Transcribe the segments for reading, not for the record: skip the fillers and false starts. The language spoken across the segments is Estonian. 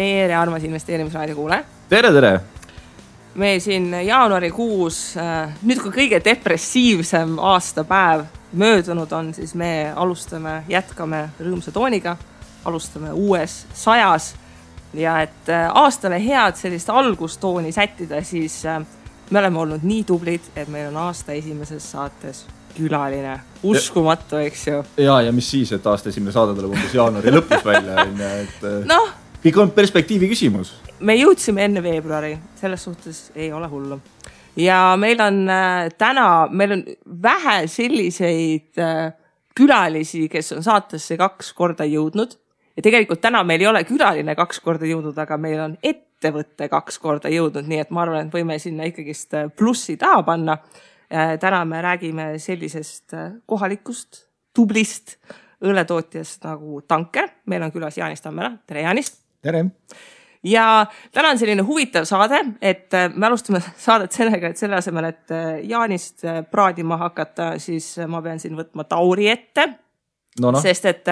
tere, armas investeerimisraadio kuule. Tere! Me siin jaanuarikuus, nüüd kui kõige depressiivsem aastapäev möödunud on, siis me jätkame rõõmsa tooniga, alustame uues 100 ja et aastale head sellist algustooni sättida, siis me oleme olnud nii tublid, et meil on aasta esimeses saates külaline. Uskumatu, eks ju. Ja mis siis, et aasta esimene saade tuleb umbes jaanuari lõpus välja. Kõik on perspektiivi küsimus. Me jõudsime enne veebruari, selles suhtes ei ole hullu. Ja meil on vähe selliseid külalisi, kes on saatesse 2 korda jõudnud. Ja tegelikult täna meil ei ole külaline 2 korda jõudnud, aga meil on ettevõtte 2 korda jõudnud, nii et ma arvan, et võime sinna ikkagist plussi taha panna. Täna me räägime sellisest kohalikust, tublist õlletootjast nagu Tanker. Meil on külas Jaanis Tammela. Tere, Jaanis! Tere! Ja täna on selline huvitav saade, et me alustame saadet sellega, et selle asemel, et Jaanist praadima hakata, siis ma pean siin võtma Tauri ette. Sest et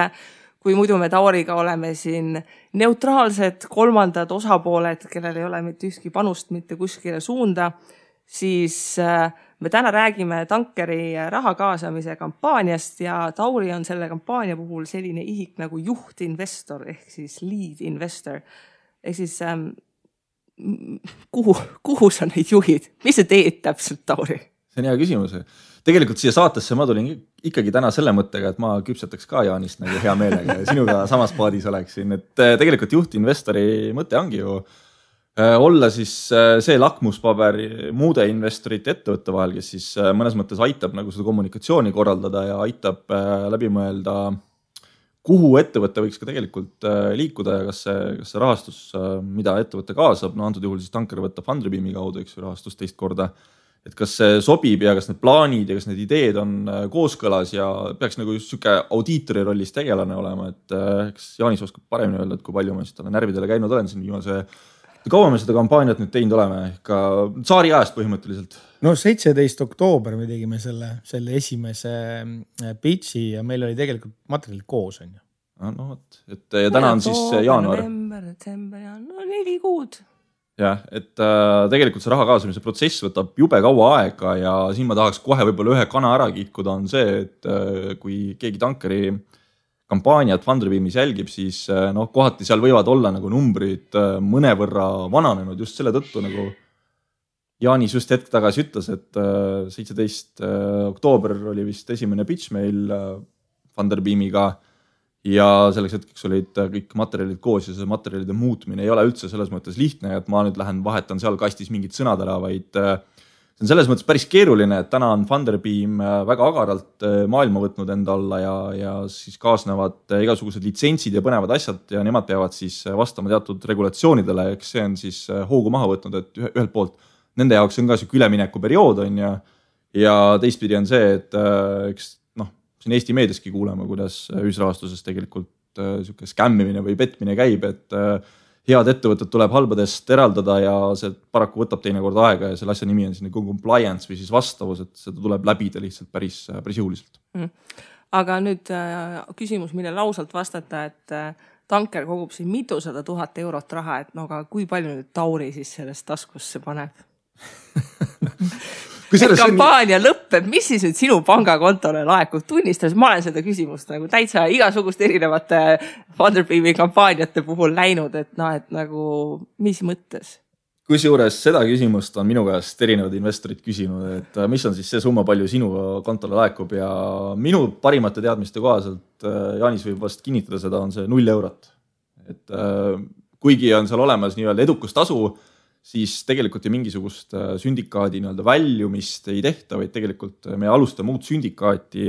kui muidu me Tauriga oleme siin neutraalsed kolmandad osapooled, kellel ei ole mitte ühtki panust mitte kuskile suunda, siis me täna räägime Tankeri raha kaasamise kampaaniast ja Tauri on selle kampaania puhul selline ihik nagu juhtinvestor ehk siis lead investor. Ehk siis kuhu sa neid juhid? Mis sa teed täpselt, Tauri? See on hea küsimus. Tegelikult siia saatesse ma tulin ikkagi täna selle mõttega, et ma küpsetaks ka Jaanist nagu hea meelega ja sinuga samas paadis oleksin. Et tegelikult juhtinvestori mõte ongi ju olla siis see lakmuspaber muude investorite ettevõtte vahel, kes siis mõnes mõttes aitab nagu seda kommunikatsiooni korraldada ja aitab läbi mõelda, kuhu ettevõte võiks ka tegelikult liikuda ja kas see rahastus, mida ettevõte kaasab, antud juhul siis Tanker võtab Funderbeami kaudu, eks ju, rahastus teist korda, et kas see sobib ja kas need plaanid ja kas need ideed on kooskõlas ja peaks nagu just siuke audiitori rollis tegelane olema, et eks Jaanis oskab paremini öelda, et kui palju ma siis talle närvidele käinud olen siin viimase. Kaua me seda kampaaniat nüüd teinud oleme? Ka saari ajast põhimõtteliselt. 17. oktoober me tegime selle esimese pitchi ja meil oli tegelikult materjalid koos. On ju. Ja täna on siis jaanuar. November, detsember, 4 kuud. Jah, et tegelikult see raha kaasamise protsess võtab jube kaua aega ja siin ma tahaks kohe võib-olla ühe kana ära kihkuda on see, et kui keegi Tankeri kampaaniat Funderbeamis jälgib, siis kohati seal võivad olla nagu numbrid mõnevõrra vananenud just selle tõttu, nagu Jaanis just hetk tagasi ütles, et 17. oktoober oli vist esimene pitch meil Funderbeamiga ja selleks hetkeks olid kõik materjalid koos ja see materjalide muutmine ei ole üldse selles mõttes lihtne, et ma nüüd lähen vahetan seal kastis mingid sõnad ära, vaid see on selles mõttes päris keeruline, et täna on Funderbeam väga agaralt maailma võtnud enda alla ja siis kaasnevad igasugused litsentsid ja põnevad asjad ja nemad peavad siis vastama teatud regulatsioonidele, eks see on siis hoogu maha võtnud, et ühelt poolt nende jaoks on ka siuke ülemineku periood on ja teistpidi on see, et eks siin Eesti meediaski kuuleme, kuidas ühisrahastuses tegelikult siuke skämmimine või petmine käib, et head ettevõtted tuleb halbadest eraldada ja see paraku võtab teinekord aega ja selle asja nimi on siin compliance või siis vastavus, et seda tuleb läbida lihtsalt päris jõuliselt. Aga nüüd küsimus, mille lausalt vastata, et Tanker kogub siin mitusada 000 eurot raha, et aga kui palju nüüd Tauri siis sellest taskusse paneb? Kampaania lõppeb, mis siis nüüd sinu pangakontole laekub? Tunnistas, ma olen seda küsimust nagu täitsa igasugust erinevate Funderbeami kampaaniate puhul läinud, et nagu mis mõttes? Kusjuures seda küsimust on minu käest erinevad investorid küsinud, et mis on siis see summa, palju sinu kontole laekub ja minu parimate teadmiste kohaselt, Jaanis võib vast kinnitada seda, on see 0 eurot. Et kuigi on seal olemas nii-öelda edukustasu, siis tegelikult mingisugust sündikaadi väljumist ei tehta, vaid tegelikult me alustame uut sündikaati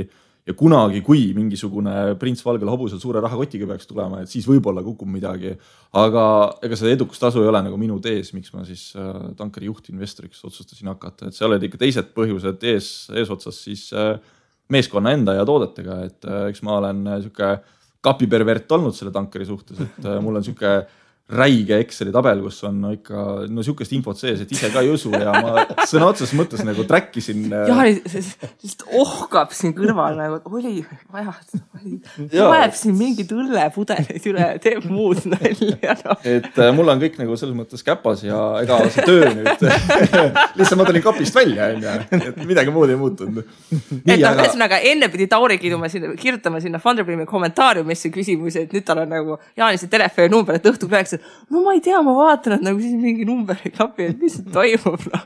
ja kunagi, kui mingisugune prints valgel hobusel suure rahakotiga peaks tulema, et siis võib-olla kukub midagi. Aga ega see edukustasu ei ole nagu minu tees, miks ma siis Tankeri juhtinvestoriks otsustasin hakata. Et see olid ikka teised põhjused eesotsas siis meeskonna enda ja toodetega, et eks ma olen siuke kapipervert olnud selle Tankeri suhtes, et mul on siuke räige Exceli tabel, kus on ikka sihukest infot sees, et ise ka ei usu ja ma sõna otseses mõttes nagu träkkisin. Jaani lihtsalt ohkab siin kõrval nagu, oli vaja, loeb siin mingid õllepudelid üle, teeb muud nalja. No. Et mul on kõik nagu selles mõttes käpas ja ega see töö nüüd lihtsalt ma tulin kapist välja, et midagi muud ei muutunud. Ühesõnaga enne pidi Tauri kirjutama sinna Funderbeami kommentaariumisse küsimusi, et nüüd tal on nagu Jaanise telefoninumber, et õhtul rääks, no ma ei tea, ma vaatan, et nagu siis mingi number ei klapi, et mis toimub. No.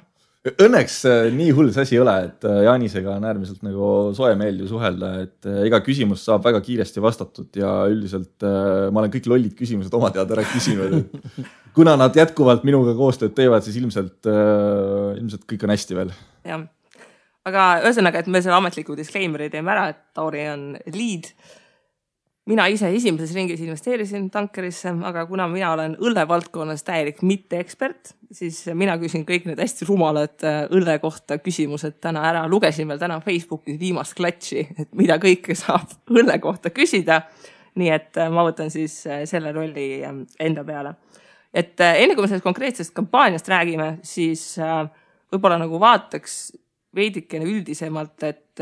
Õnneks nii hull see asi ei ole, et Jaanisega on äärmiselt nagu soe meeldiv suhelda, et iga küsimus saab väga kiiresti vastatud ja üldiselt ma olen kõik lollid küsimused oma teada ära küsinud. Kuna nad jätkuvalt minuga koostööd teevad, siis ilmselt kõik on hästi veel. Jah. Aga ühesõnaga, et me selle ametliku disclaimeri teeme ära, et Tauri on lead. Mina ise esimeses ringis investeerisin tankerisse, aga kuna mina olen õlle valdkonnas täielik mitte ekspert, siis mina küsin kõik need hästi rumalad õlle kohta küsimused täna ära. Lugesin veel täna Facebookis viimast klatši, et mida kõike saab õlle kohta küsida. Nii et ma võtan siis selle rolli enda peale. Et enne kui me sellest konkreetsest kampaaniast räägime, siis võib-olla nagu vaataks veidikene üldisemalt, et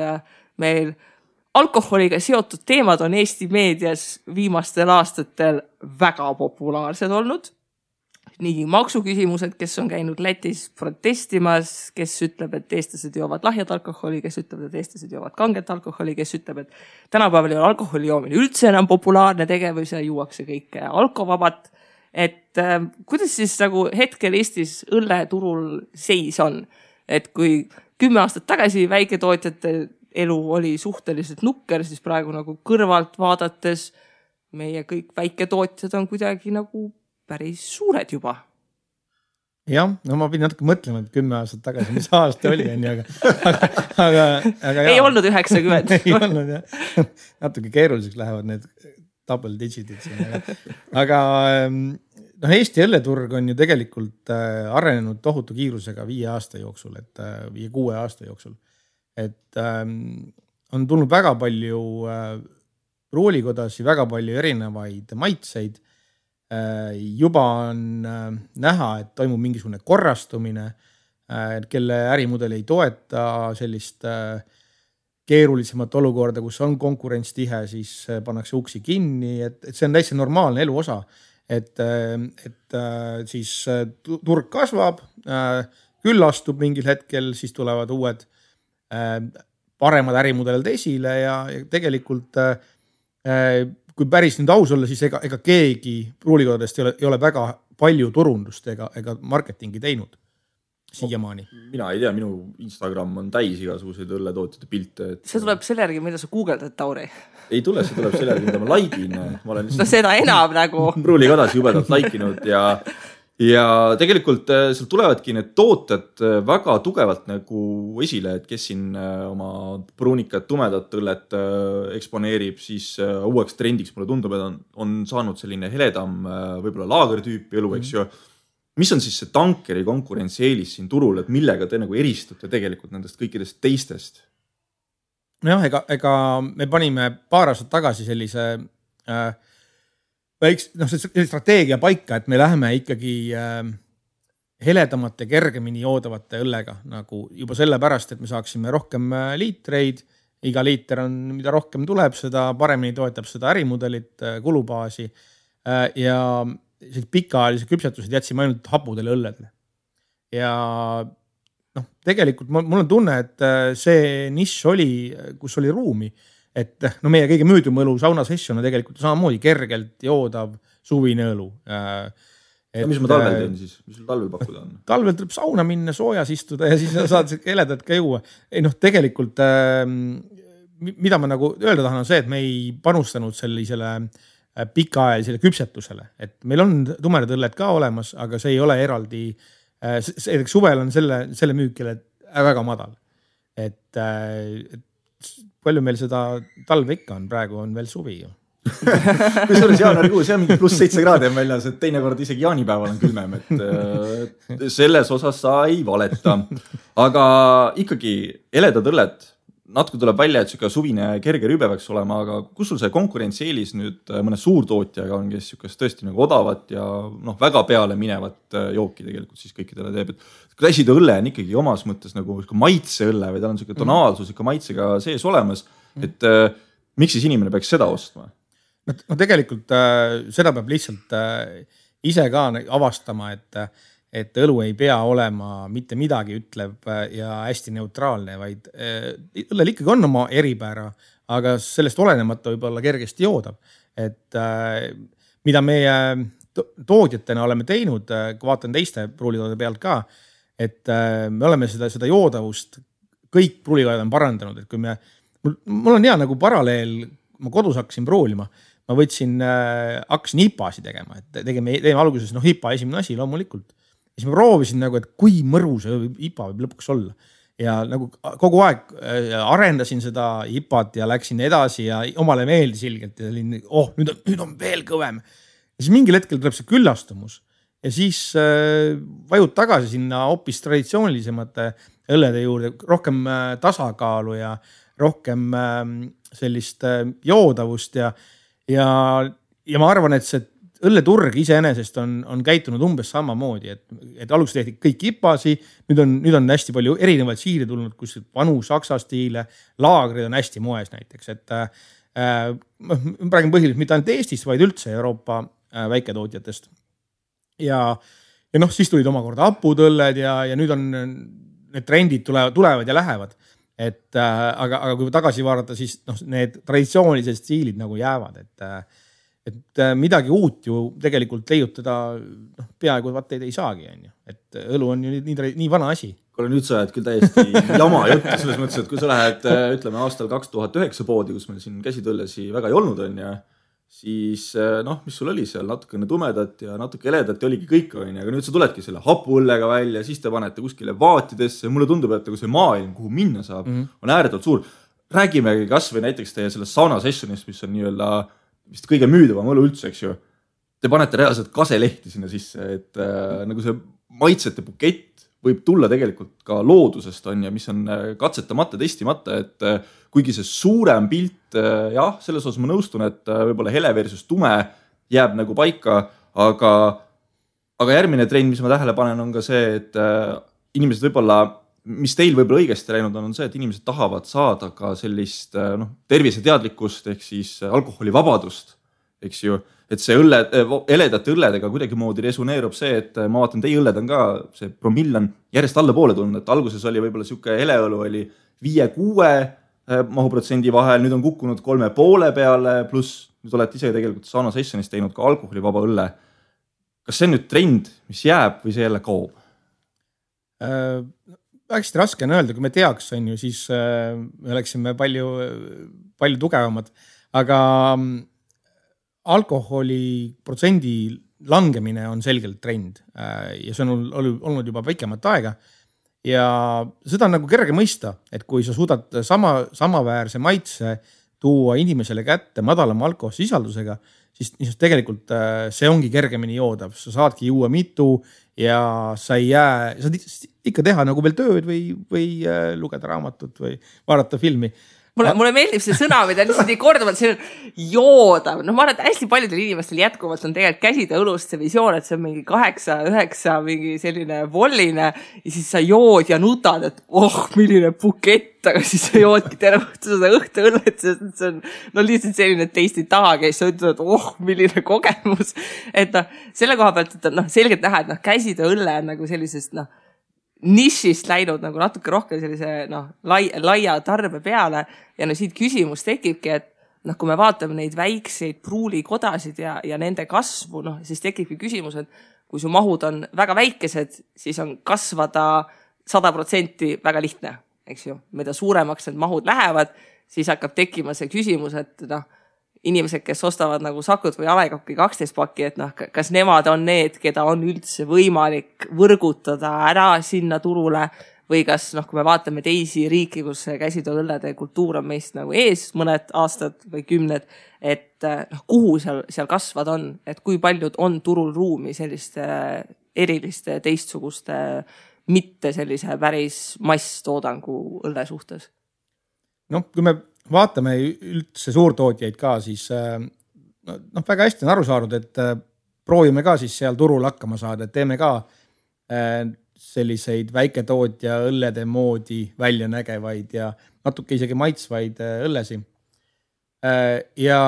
meil alkoholiga seotud teemad on Eesti meedias viimastel aastatel väga populaarsed olnud. Nii maksuküsimused, kes on käinud Lätis protestimas, kes ütleb, et eestlased joovad lahjad alkoholi, kes ütleb, et eestlased joovad kanget alkoholi, kes ütleb, et tänapäeval ei ole alkoholi joomine üldse enam populaarne tegevus ja juuakse kõike alkovabat. Et kuidas siis nagu hetkel Eestis õlleturul seis on? Et kui 10 aastat tagasi väiketootjate elu oli suhteliselt nukker, siis praegu nagu kõrvalt vaadates meie kõik väiketootjad on kuidagi nagu päris suured juba. Jah, no ma pidin natuke mõtlema, et 10 aastat tagasi, mis aasta oli, aga ei olnud 90. Ei olnud, jah. Natuke keeruliseks lähevad need double digitid. Aga Eesti õlleturg on ju tegelikult arenenud tohutu kiirusega 5 aasta jooksul, et 5-6 aasta jooksul. Et on tulnud väga palju pruulikodasi, väga palju erinevaid maitseid. Juba on näha, et toimub mingisugune korrastumine, kelle ärimudel ei toeta sellist keerulisemat olukorda, kus on konkurents tihe, siis pannakse uksi kinni, et see on täitsa normaalne elu osa. Et siis turg kasvab, küllastub mingil hetkel, siis tulevad uued paremad ärimudelid esile ja tegelikult kui päris nüüd aus olla, siis ega keegi pruulikodadest ei ole väga palju turundust ega marketingi teinud siiamaani. Mina ei tea, minu Instagram on täis igasuguseid õlletootjate pilte. See tuleb selle järgi, mida sa googeldad, Tauri? Ei tule, see tuleb selle järgi, mida ma likein. Ma olen seda enam nagu. Pruulikodas jubedalt like'inud ja tegelikult seal tulevadki need tooted väga tugevalt nagu esile, et kes siin oma pruunikat, tumedat õllet eksponeerib, siis uueks trendiks mulle tundub, et on saanud selline heledam võib-olla laagertüüpi elu, eks ju. Mis on siis see tankeri konkurentsieelis siin turul, et millega te nagu eristute tegelikult nendest kõikidest teistest? Jah, ega me panime paar aastat tagasi sellise see strateegia paika, et me läheme ikkagi heledamate, kergemini joodavate õllega, nagu juba sellepärast, et me saaksime rohkem liitreid. Iga liiter on, mida rohkem tuleb, seda paremini toetab seda ärimudelit, kulubaasi ja pikaajalise küpsetused jätsime ainult hapudele õlledele. Ja tegelikult mul on tunne, et see nišš oli, kus oli ruumi, et meie kõige müüdum õlu sauna session on tegelikult samamoodi kergelt joodav suvine õlu. Mis ma talvel teen siis? Mis sul talvel pakkuda on? Talvel tuleb sauna minna, soojas istuda ja siis saad heledat ka juua. Tegelikult, mida ma nagu öelda tahan, on see, et me ei panustanud sellisele pikaajalisele küpsetusele. Et meil on tumedad õlled ka olemas, aga see ei ole eraldi. Suvel on selle müükile väga madal. Et palju meil seda talve ikka on, praegu on veel suvi ju. Kusjuures jaanuarikuu, see on mingi +7 kraadi on väljas, et teinekord isegi jaanipäeval on külmem, et selles osas sa ei valeta. Aga ikkagi heledad õlled, natuke tuleb välja, et siuke suvine kerge rübe peaks olema, aga kus sul see konkurentsieelis nüüd mõne suurtootjaga on, kes siukest tõesti nagu odavat ja väga peale minevat jooki tegelikult siis kõikidele teeb, et käsitööõlle on ikkagi omas mõttes nagu maitseõlle või tal on siuke tonaalsus ikka maitsega sees olemas, et miks siis inimene peaks seda ostma? No tegelikult seda peab lihtsalt ise ka avastama, et õlu ei pea olema mitte midagi ütlev ja hästi neutraalne, vaid õllel ikkagi on oma eripära, aga sellest olenemata võib olla kergesti joodab. Et mida meie toodjatena oleme teinud, kui vaatan teiste pruulitoode pealt ka, et me oleme seda joodavust, kõik pruulitooded on parandanud, et kui mul on hea nagu paralleel, ma kodus hakkasin pruulima, ma hakkasin IPA-si tegema, et teeme alguses IPA esimene asi loomulikult. Ja siis ma proovisin nagu, et kui mõru see IPA võib lõpuks olla. Ja nagu kogu aeg arendasin seda IPA-t ja läksin edasi ja omale meeldis ilgelt ja nüüd on veel kõvem. Ja siis mingil hetkel tuleb see küllastumus ja siis vajud tagasi sinna hoopis traditsioonilisemate õllede juurde, rohkem tasakaalu ja rohkem sellist joodavust ja ma arvan, et see õlleturg iseenesest on käitunud umbes samamoodi, et alguses tehti kõik IPA-si, nüüd on hästi palju erinevaid siile tulnud, kus vanu saksa stiile, laagrid on hästi moes näiteks, et ma räägin põhiliselt mitte ainult Eestist, vaid üldse Euroopa väiketootjatest. Ja siis tulid omakorda hapudõlled ja nüüd on need trendid tulevad ja lähevad. Aga kui tagasi vaadata, siis need traditsioonilised stiilid nagu jäävad, et midagi uut ju tegelikult leiutada peaaegu vaat ei saagi, et õlu on ju nii vana asi. Kuule, nüüd sa oled küll täiesti jama juttu selles mõttes, et kui sa lähed, ütleme, aastal 2009 poodi, kus meil siin käsitööllesi väga ei olnud on ja siis mis sul oli seal natukene tumedat ja natuke heledat ja oligi kõik on, aga nüüd sa tuledki selle hapuõllega välja, siis te panete kuskile vaatidesse, mulle tundub, et see maailm, kuhu minna saab, on ääretult suur. Räägimegi kas või näiteks teie sellest sauna sessionist, mis on nii-öelda vist kõige müüdavam õlu üldse, eks ju. Te panete reaalselt kaselehti sinna sisse, et nagu see maitsete bukett võib tulla tegelikult ka loodusest on ja mis on katsetamata, testimata, et kuigi see suurem pilt, jah, selles osas ma nõustun, et võib-olla hele versus tume jääb nagu paika, aga järgmine trend, mis ma tähele panen, on ka see, et inimesed võib-olla, mis teil võib-olla õigesti läinud on see, et inimesed tahavad saada ka sellist terviseteadlikkust ehk siis alkoholivabadust, eks ju, et see heledate õlledega kuidagi moodi resoneerub see, et ma vaatan, teie õlled on ka, see promill on järjest alla poole tulnud, et alguses oli võib-olla siuke heleõlu oli 5-6 mahuprotsendi vahel, nüüd on kukkunud 3,5 peale, pluss nüüd olete ise tegelikult sauna sessionis teinud ka alkoholivaba õlle. Kas see on nüüd trend, mis jääb või see jälle kaob? Hästi raske on öelda, kui me teaks, on ju, siis me oleksime palju tugevamad, aga alkoholi protsendi langemine on selgelt trend ja see on olnud juba pikemat aega ja seda on nagu kerge mõista, et kui sa suudad samaväärse maitse tuua inimesele kätte madalama alkoholsisaldusega, siis tegelikult see ongi kergemini joodav, sa saadki juua mitu ja sa saad ikka teha nagu veel tööd või lugeda raamatut või vaadata filmi. Mulle meeldib see sõna, mida lihtsalt nii korduvalt, see on joodav. Ma arvan, et hästi paljudel inimestel jätkuvalt on tegelikult käsida õlust see visioon, et see on mingi 8-9 mingi selline volline ja siis sa jood ja nutad, et milline bukett, aga siis sa joodki terve seda õhtuõllet, see on lihtsalt selline teistid taha käis, sa ütled, et milline kogemus. Et selle koha pealt, et selgelt näha, et käsida õlle on nagu sellisest nišist läinud nagu natuke rohkem sellise laia tarbe peale ja siit küsimus tekibki, et kui me vaatame neid väikseid pruulikodasid ja nende kasvu, siis tekibki küsimus, et kui su mahud on väga väikesed, siis on kasvada 100% väga lihtne, eks ju. Mida suuremaks need mahud lähevad, siis hakkab tekkima see küsimus, et inimesed, kes ostavad nagu Sakut või Alekokki 12 pakki, et kas nemad on need, keda on üldse võimalik võrgutada ära sinna turule või kas, kui me vaatame teisi riiki, kus käsitööõllede kultuur on meist nagu ees mõned aastad või 10, et kuhu seal kasvad on, et kui paljud on turul ruumi selliste eriliste teistsuguste mitte sellise päris masstoodangu õlle suhtes? kui me vaatame üldse suurtootjaid ka, siis väga hästi on aru saanud, et proovime ka siis seal turul hakkama saada, et teeme ka selliseid väiketootja õllede moodi välja nägevaid ja natuke isegi maitsvaid õllesi. Ja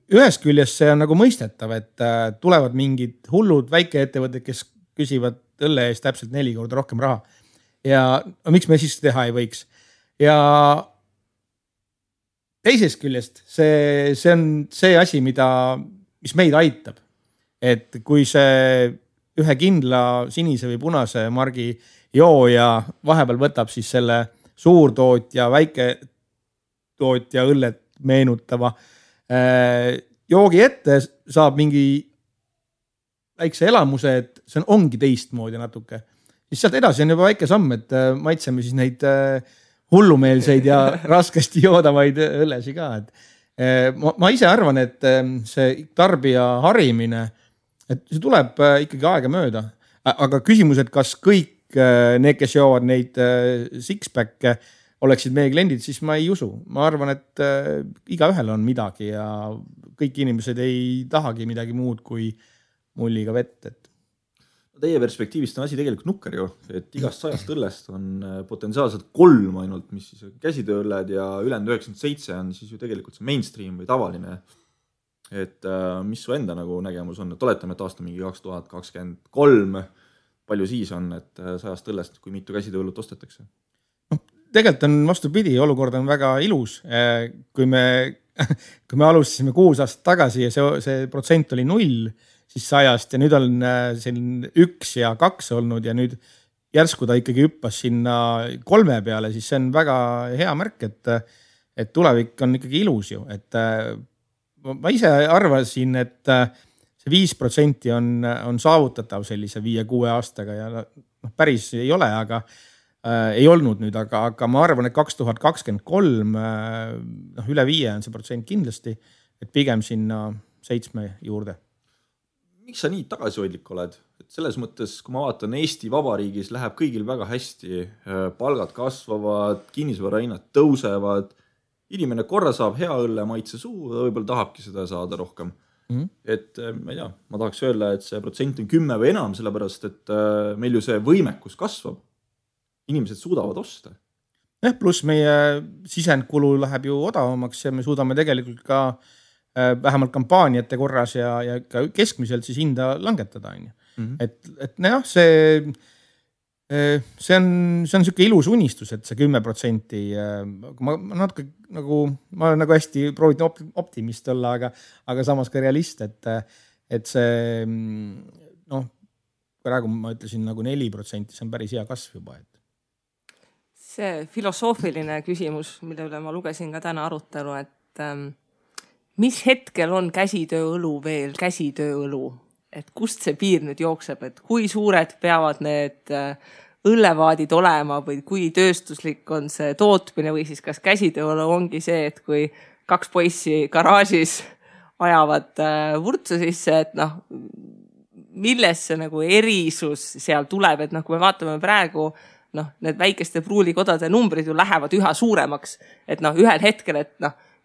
ühest küljest see on nagu mõistetav, et tulevad mingid hullud väikeettevõtted, kes küsivad õlle eest täpselt 4 korda rohkem raha. Ja miks me siis teha ei võiks? Ja teisest küljest see on see asi, mis meid aitab. Et kui see ühe kindla sinise või punase margi jooja vahepeal võtab siis selle suurtootja, väiketootja õllet meenutava joogi ette, saab mingi väikse elamuse, et see ongi teistmoodi natuke. Siis sealt edasi on juba väike samm, et maitseme siis neid hullumeelseid ja raskesti joodavaid õllesi ka. Ma ise arvan, et see tarbija harimine, et see tuleb ikkagi aega mööda, aga küsimus, et kas kõik need, kes joovad neid six-pack'e, oleksid meie kliendid, siis ma ei usu. Ma arvan, et igaühel on midagi ja kõik inimesed ei tahagi midagi muud kui mulliga vett. Teie perspektiivist on asi tegelikult nukker ju, et igast 100 õllest on potentsiaalselt 3 ainult, mis siis käsitööõlled ja ülejäänud 97 on siis ju tegelikult see mainstream või tavaline. Et mis su enda nagu nägemus on, et oletame, et aasta mingi 2023, palju siis on, et 100 õllest, kui mitu käsitööõllut ostetakse? Tegelikult on vastupidi, olukord on väga ilus. Kui me alustasime 6 aastat tagasi ja see protsent oli 0, siis 100 ja nüüd on selline 1 ja 2 olnud ja nüüd järsku ta ikkagi hüppas sinna 3 peale, siis see on väga hea märk, et tulevik on ikkagi ilus ju. Et ma ise arvasin, et see 5% on saavutatav sellise 5-6 aastaga ja päris ei ole, aga ei olnud nüüd, aga ma arvan, et 2023 üle 5 on see protsent kindlasti, et pigem sinna 7 juurde. Miks sa nii tagasihoidlik oled? Et selles mõttes, kui ma vaatan, Eesti Vabariigis läheb kõigil väga hästi, palgad kasvavad, kinnisvarahinnad tõusevad, inimene korra saab hea õlle maitse suu, ta võib-olla tahabki seda saada rohkem. Et ma ei tea, ma tahaks öelda, et see protsent on 10 või enam, sellepärast, et meil ju see võimekus kasvab. Inimesed suudavad osta. Pluss meie sisendkulu läheb ju odavamaks ja me suudame tegelikult ka vähemalt kampaaniate korras ja ka keskmiselt siis hinda langetada. Et jah, see on selline ilus unistus, et see 10%, ma natuke ma olen nagu hästi proovinud optimist olla, aga samas ka realist, et see praegu ma ütlesin nagu 4%, see on päris hea kasv juba. See filosoofiline küsimus, mille üle ma lugesin ka täna arutelu, et mis hetkel on käsitööõlu veel käsitööõlu? Et kust see piir nüüd jookseb, et kui suured peavad need õllevaadid olema või kui tööstuslik on see tootmine või siis kas käsitööõlu ongi see, et kui 2 poissi garaažis ajavad vurtsu sisse, et millest see nagu erisus seal tuleb, et kui me vaatame praegu need väikeste pruulikodade numbrid ju lähevad üha suuremaks, et ühel hetkel, et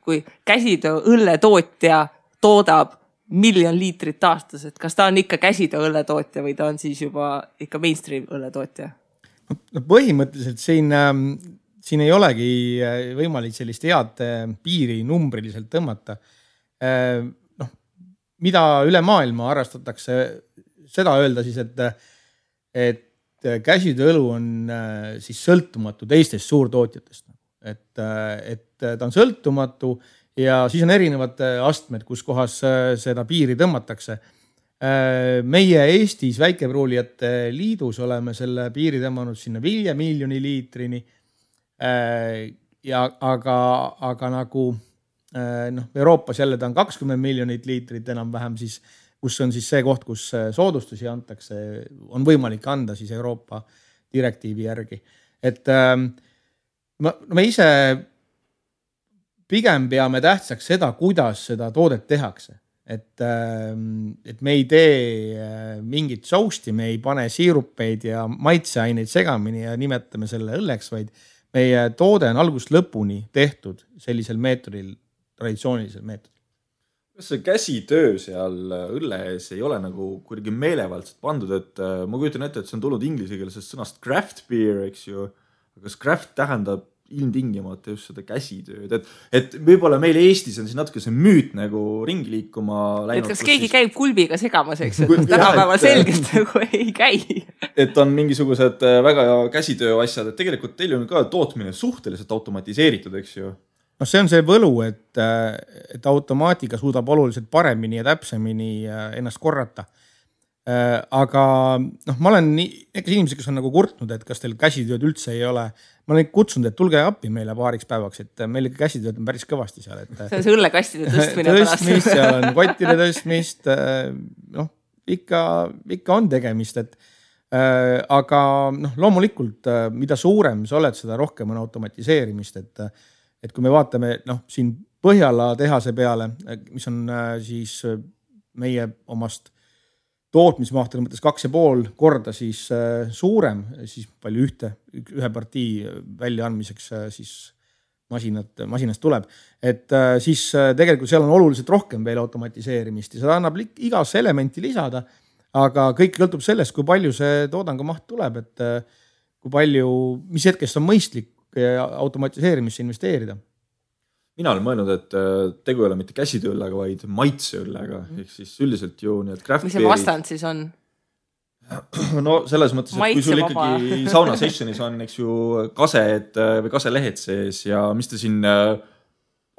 kui käsitööõlletootja toodab 1 miljon liitrit aastas, et kas ta on ikka käsitööõlletootja või ta on siis juba ikka mainstream õlletootja? Põhimõtteliselt siin ei olegi võimalik sellist head piiri numbriliselt tõmmata. Mida üle maailma arrastatakse seda öelda siis, et käsitööõlu on siis sõltumatu teistest suurtootjatest. Et ta on sõltumatu ja siis on erinevad astmed, kus kohas seda piiri tõmmatakse. Meie Eestis väikepruulijate liidus oleme selle piiri tõmmanud sinna 5 miljoni liitrini. Aga nagu Euroopas jälle ta on 20 miljonit liitrit enam-vähem siis, kus on siis see koht, kus soodustusi antakse, on võimalik anda siis Euroopa direktiivi järgi. Et me ise pigem peame tähtsaks seda, kuidas seda toodet tehakse. Et me ei tee mingit sousti, me ei pane siirupeid ja maitseaineid segamini ja nimetame selle õlleks, vaid meie toode on algusest lõpuni tehtud sellisel meetodil, traditsioonilisel meetodil. Kas see käsitöö seal õlle ees ei ole nagu kuidagi meelevaldselt pandud, et ma kujutan ette, et see on tulnud inglisekeelsest sõnast craft beer, eks ju, aga kas craft tähendab ilmtingimata just seda käsitööd, et võib-olla meil Eestis on siin natuke see müüt nagu ringi liikuma läinud. Et kas keegi käib kulbiga segamas, eks, et tänapäeval selgelt nagu ei käi. Et on mingisugused väga käsitöö asjad, et tegelikult teil on ka tootmine suhteliselt automatiseeritud, eks ju? No see on see võlu, et automaatika suudab oluliselt paremini ja täpsemini ennast korrata. Aga ma olen inimesed, kes on nagu kurtnud, et kas teil käsitööd üldse ei ole. Ma olen kutsunud, et tulge appi meile paariks päevaks, et meil käsitööd on päris kõvasti seal. Et see on see õllekastide tõstmine tõstmist, seal on kottide tõstmist, ikka on tegemist, aga loomulikult, mida suurem sa oled, seda rohkem on automatiseerimist, et kui me vaatame siin Põhjala tehase peale, mis on siis meie omast tootmismahtude mõttes 2,5 korda siis suurem, siis palju ühe partii väljaandmiseks siis masinast tuleb. Et siis tegelikult seal on oluliselt rohkem veel automatiseerimist ja seda annab igas elementi lisada, aga kõik sõltub sellest, kui palju see toodangu maht tuleb, et kui palju, mis hetkest on mõistlik automatiseerimisse investeerida. Mina olen mõelnud, et tegu ei ole mitte käsitööllega, vaid maitseõllega. Ehk siis üldiselt ju need craft mis see vastand siis on? No selles mõttes, et kui sul ikkagi sauna sessionis on, eks ju, kased või kaselehed sees ja mis te siin,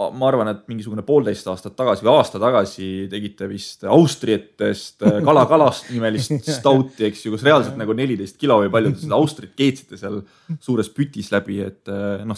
ma arvan, et mingisugune 1,5 aastat tagasi või aasta tagasi tegite vist Austrietest kalakalast nimelist stouti, eks ju, kus reaalselt nagu 14 kilo või palju seda Austrit keetsite seal suures pütis läbi, et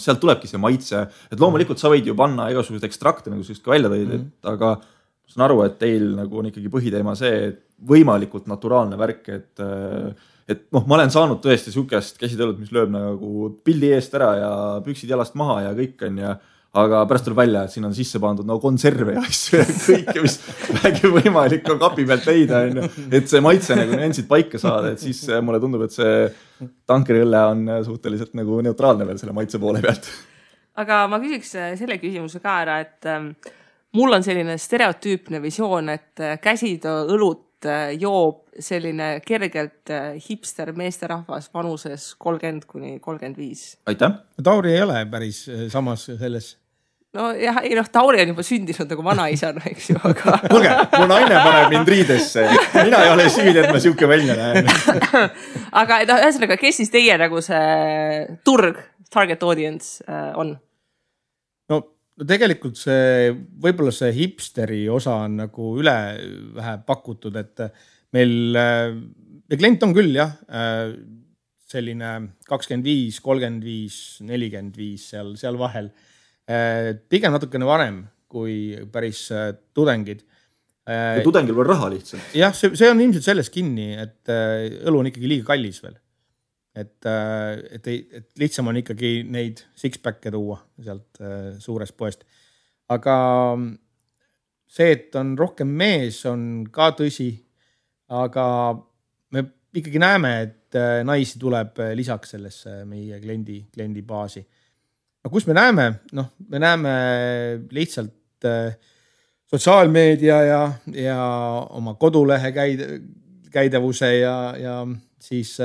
sealt tulebki see maitse, et loomulikult sa võid ju panna igasugused ekstrakte, nagu sa just ka välja tõid, aga ma saan aru, et teil nagu on ikkagi põhiteema see, et võimalikult naturaalne värk, et ma olen saanud tõesti sukest käsitöölet, mis lööb nagu pildi eest ära ja püksid jalast maha ja kõik on ja aga pärast tuleb välja, et siin on sisse pandud konserve ja asju ja kõike, mis vähegi võimalik on kapi pealt leida, et see maitse nagu nüansid paika saada, et siis mulle tundub, et see tankeriõlle on suhteliselt nagu neutraalne veel selle maitse poole pealt. Aga ma küsiks selle küsimuse ka ära, et mul on selline stereotüüpne visioon, et käsitöö õlut joob selline kergelt hipster meesterahvas vanuses 30-35. Aitäh! Tauri ei ole päris samas selles. No jah, Tauri on juba sündinud nagu vanaisana, eks ju, aga... Kuulge, mu naine paneb mind riidesse. Mina ei ole süüd, et ma siuke välja näen. Aga ühesõnaga, kes siis teie nagu see turg, target audience on? No tegelikult see, võib-olla see hipsteri osa on nagu üle vähe pakutud, et meil klient on küll jah, selline 25, 35, 45 seal vahel. Pigem natukene varem kui päris tudengid. Ja tudengil on raha lihtsalt. Jah, see on ilmselt selles kinni, et õlu on ikkagi liiga kallis veel. Et lihtsam on ikkagi neid six-pack'e tuua sealt suurest poest. Aga see, et on rohkem mees, on ka tõsi. Aga me ikkagi näeme, et naisi tuleb lisaks sellesse meie kliendi baasi. Aga kus me näeme? Me näeme lihtsalt sotsiaalmeedia ja oma kodulehe käidavuse ja siis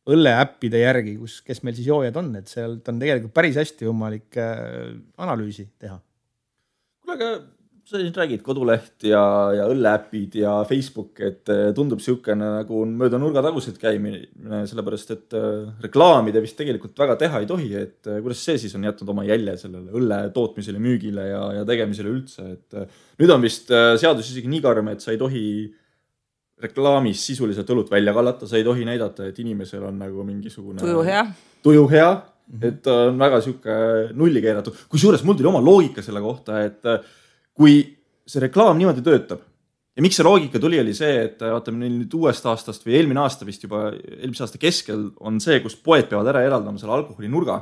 õlleäppide järgi, kes meil siis joojad on, et sealt on tegelikult päris hästi võimalik analüüsi teha. Kuule, aga sa siin räägid koduleht ja õlleäppid ja Facebook, et tundub siukene nagu mööda nurga tagusid käimine, sellepärast, et reklaamide vist tegelikult väga teha ei tohi, et kuidas see siis on jätnud oma jälje sellele õlle tootmisele, müügile ja tegemisele üldse, et nüüd on vist seadus isegi nii karm, et sa ei tohi reklaamis sisuliselt õlut välja kallata, sa ei tohi näidata, et inimesel on nagu mingisugune tuju hea, et on väga siuke nulli keeratud. Kui suures mul tuli oma loogika selle kohta, et kui see reklaam niimoodi töötab ja miks see loogika tuli, oli see, et vaatame nüüd uuest aastast või eelmine aasta vist juba, eelmise aasta keskel on see, kus poed peavad ära eraldama selle alkoholi nurga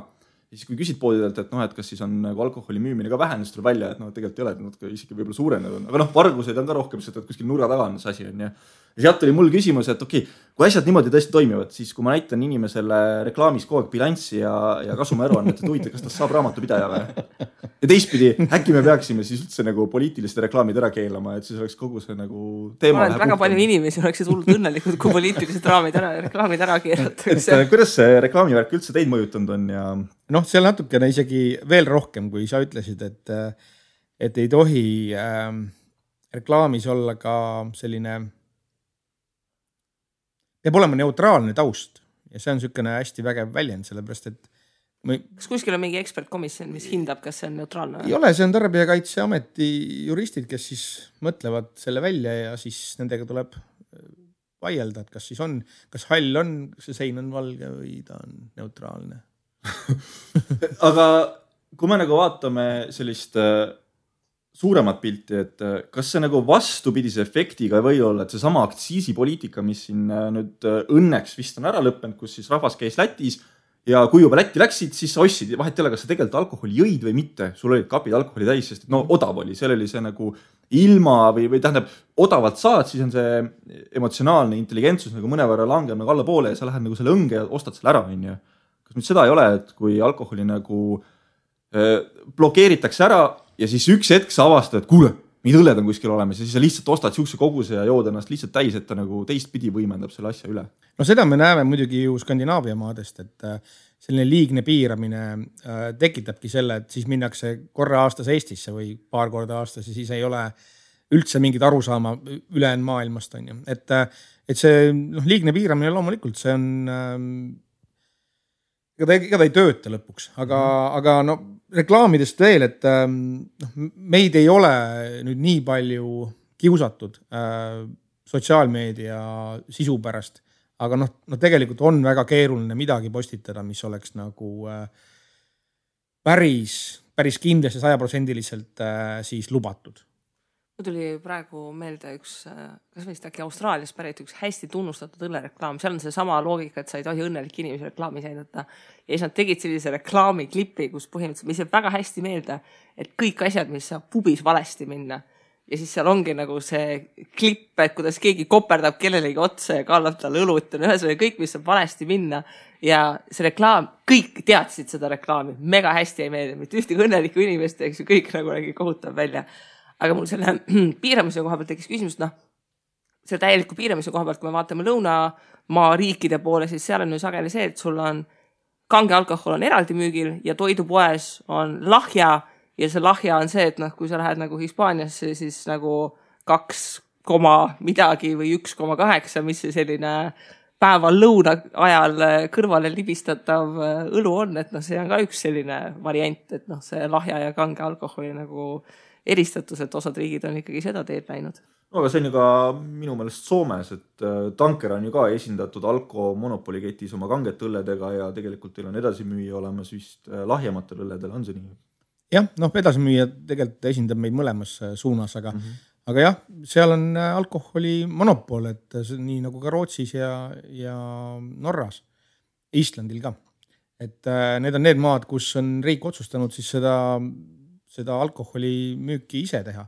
siis kui küsid poodidelt, et noh, et kas siis on nagu alkoholi müümine ka vähenenud, siis tuleb välja, et noh, tegelikult ei ole, et nad isegi võib-olla suurenenud on. Aga noh, varguseid on ka rohkem, sest et kuskil nurga taga on see asi on ja sealt oli mul küsimus, et okei, kui asjad niimoodi tõesti toimivad, siis kui ma näitan inimesele reklaamis kogu aeg bilanssi ja kasumiaruannet, et huvitav, kas ta saab raamatupidaja või? Ja teistpidi, äkki me peaksime siis üldse nagu poliitilised reklaamid ära keelama, et siis oleks kogu see nagu teema. Väga palju inimesi oleksid hullult õnnelikud, kui poliitilised reklaamid ära keelatakse. Kuidas see reklaamivärk üldse teid mõjutanud on ja noh, seal natukene isegi veel rohkem, kui sa ütlesid, et ei tohi reklaamis olla ka selline peab olema neutraalne taust ja see on niisugune hästi vägev väljend, sellepärast et kas kuskil on mingi ekspertkomisjon, mis hindab, kas see on neutraalne? Ei ole, see on Tarbijakaitseameti juristid, kes siis mõtlevad selle välja ja siis nendega tuleb vaielda, et kas siis on, kas hall on, see sein on valge või ta on neutraalne. Aga kui me nagu vaatame sellist suuremat pilti, et kas see nagu vastupidise efektiga või olla, et see sama aktsiisipoliitika, mis siin nüüd õnneks vist on ära lõppenud, kus siis rahvas käis Lätis ja kui juba Lätti läksid, siis sa ostsid, vahet ei ole, kas sa tegelikult alkoholi jõid või mitte, sul olid kapid alkoholi täis, sest no odav oli, seal oli see nagu ilma või tähendab, odavalt saad, siis on see emotsionaalne intelligentsus nagu mõnevõrra langeb nagu alla poole ja sa lähed nagu selle õnge ja ostad selle ära, on ju. Kas nüüd seda ei ole, et kui alkoholi nagu blokeeritakse ära ja siis üks hetk sa avastad, et kuule, mingid õlled on kuskil olemas ja siis sa lihtsalt ostad siukse koguse ja jood ennast lihtsalt täis, et ta nagu teistpidi võimendab selle asja üle. No seda me näeme muidugi ju Skandinaavia maadest, et selline liigne piiramine tekitabki selle, et siis minnakse korra aastas Eestisse või paar korda aastas ja siis ei ole üldse mingit arusaama ülejäänud maailmast on ju. Et see liigne piiramine loomulikult, see on ega ta ei tööta lõpuks, aga no reklaamidest veel, et meid ei ole nüüd nii palju kiusatud sotsiaalmeedia sisu pärast, aga tegelikult on väga keeruline midagi postitada, mis oleks nagu päris kindlasti 100% siis lubatud. Tuli praegu meelde üks, kas vist äkki Austraalias pärit üks hästi tunnustatud õllereklaam. Seal on see sama loogika, et sa ei tohi õnnelik inimesi reklaamis näidata. Ja siis nad tegid sellise reklaamiklipi, kus põhimõtteliselt mis jääb väga hästi meelde, et kõik asjad, mis saab pubis valesti minna. Ja siis seal ongi nagu see klipp, et kuidas keegi koperdab kellelegi otsa ja kallab talle õlut. Ühesõnaga kõik, mis saab valesti minna. Ja see reklaam, kõik teadsid seda reklaami. Mega hästi ei meelde. Mitte ühtegi õnneliku inimest, eks ju, kõik nagu nägi kohutav välja. Aga mul selle piiramise koha pealt tekkis küsimus, selle täieliku piiramise koha pealt, kui me vaatame lõunamaa riikide poole, siis seal on ju sageli see, et sul on kange alkohol on eraldi müügil ja toidupoes on lahja ja see lahja on see, et kui sa lähed nagu Hispaaniasse, siis nagu 2, midagi või 1,8, mis see selline päeval lõuna ajal kõrvale libistatav õlu on, et see on ka üks selline variant, et see lahja ja kange alkoholi nagu eristatus, et osad riigid on ikkagi seda teed läinud. No, aga see on ju ka minu meelest Soomes, et Tanker on ju ka esindatud Alko monopoliketis oma kanget õlledega ja tegelikult teil on edasimüüja olemas vist lahjematel õlledel, on see nii? Jah, edasimüüja tegelikult esindab meid mõlemas suunas, aga jah, seal on alkoholi monopol, et nii nagu ka Rootsis ja Norras, Islandil ka. Et need on need maad, kus on riik otsustanud siis seda alkoholi müüki ise teha.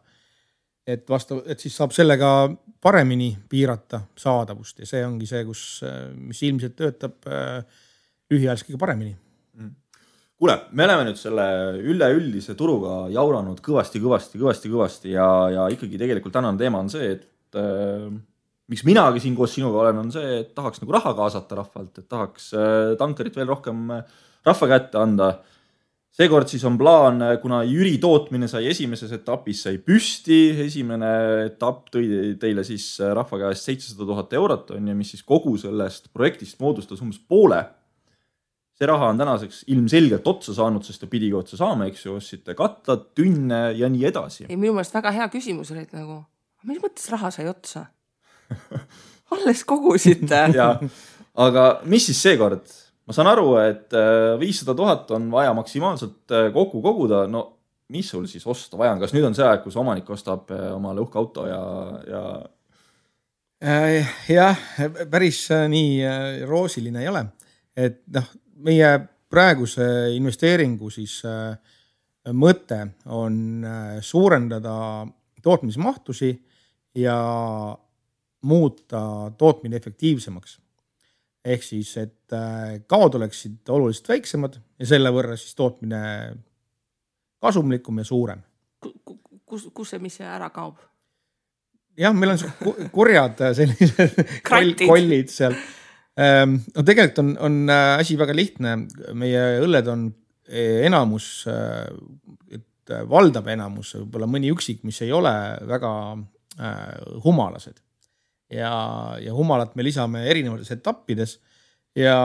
Et siis saab sellega paremini piirata saadavust ja see ongi see, mis ilmselt töötab lühiajaliselt kõige paremini. Kuule, me oleme nüüd selle üleüldise turuga jauranud kõvasti ja ikkagi tegelikult tänane teema on see, et miks minagi siin koos sinuga olen, on see, et tahaks nagu raha kaasata rahvalt, et tahaks Tankerit veel rohkem rahva kätte anda. Seekord siis on plaan, kuna Jüri tootmine sai esimeses etapis sai püsti, esimene etapp tõi teile siis rahva käest 700,000 eurot on ja mis siis kogu sellest projektist moodustas umbes poole. See raha on tänaseks ilmselgelt otsa saanud, sest ta pidigi otsa saama, eks ju, ostsite katlad, tünne ja nii edasi. Ei, minu meelest väga hea küsimus oli, et nagu, mis mõttes raha sai otsa? Alles kogusite. Ja, aga mis siis seekord? Ma saan aru, et 500,000 on vaja maksimaalselt kokku koguda. No, mis sul siis osta vaja on? Kas nüüd on see aeg, kus omanik ostab omale uhke auto ja... Jah, päris nii roosiline ei ole. Et meie praeguse investeeringu siis mõte on suurendada tootmismahtusi ja muuta tootmine efektiivsemaks. Ehk siis, et kaod oleksid oluliselt väiksemad ja selle võrra siis tootmine kasumlikum ja suurem. Kus see, mis see ära kaob? Jah, meil on kurjad sellised kollid seal. No tegelikult on asi väga lihtne. Meie õlled on enamus, et valdav enamus, võib-olla mõni üksik, mis ei ole väga humalased. Ja humalat me lisame erinevates etappides ja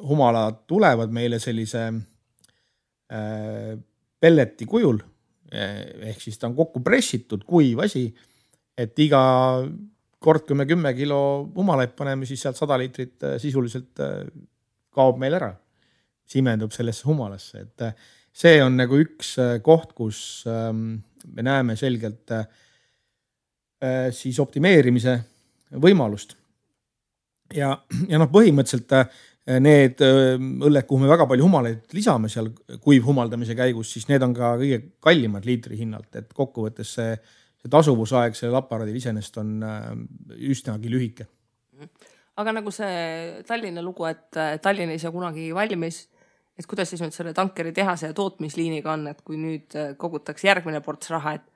humalad tulevad meile sellise pelleti kujul, ehk siis ta on kokku pressitud kuiv asi, et iga kord, kui me 10 kilo humalaid paneme, siis sealt 100 liitrit sisuliselt kaob meil ära, simendub sellesse humalasse. Et see on nagu üks koht, kus me näeme selgelt siis optimeerimise võimalust. Ja põhimõtteliselt need õlled, kuhu me väga palju humalaid lisame seal kuivhumaldamise käigus, siis need on ka kõige kallimad liitri hinnalt, et kokkuvõttes see tasuvusaeg sellel aparaadil iseenesest on üsnagi lühike. Aga nagu see Tallinna lugu, et Tallinn ei saa kunagi valmis, et kuidas siis nüüd selle tankeri tehase ja tootmisliiniga on, et kui nüüd kogutakse järgmine ports raha, et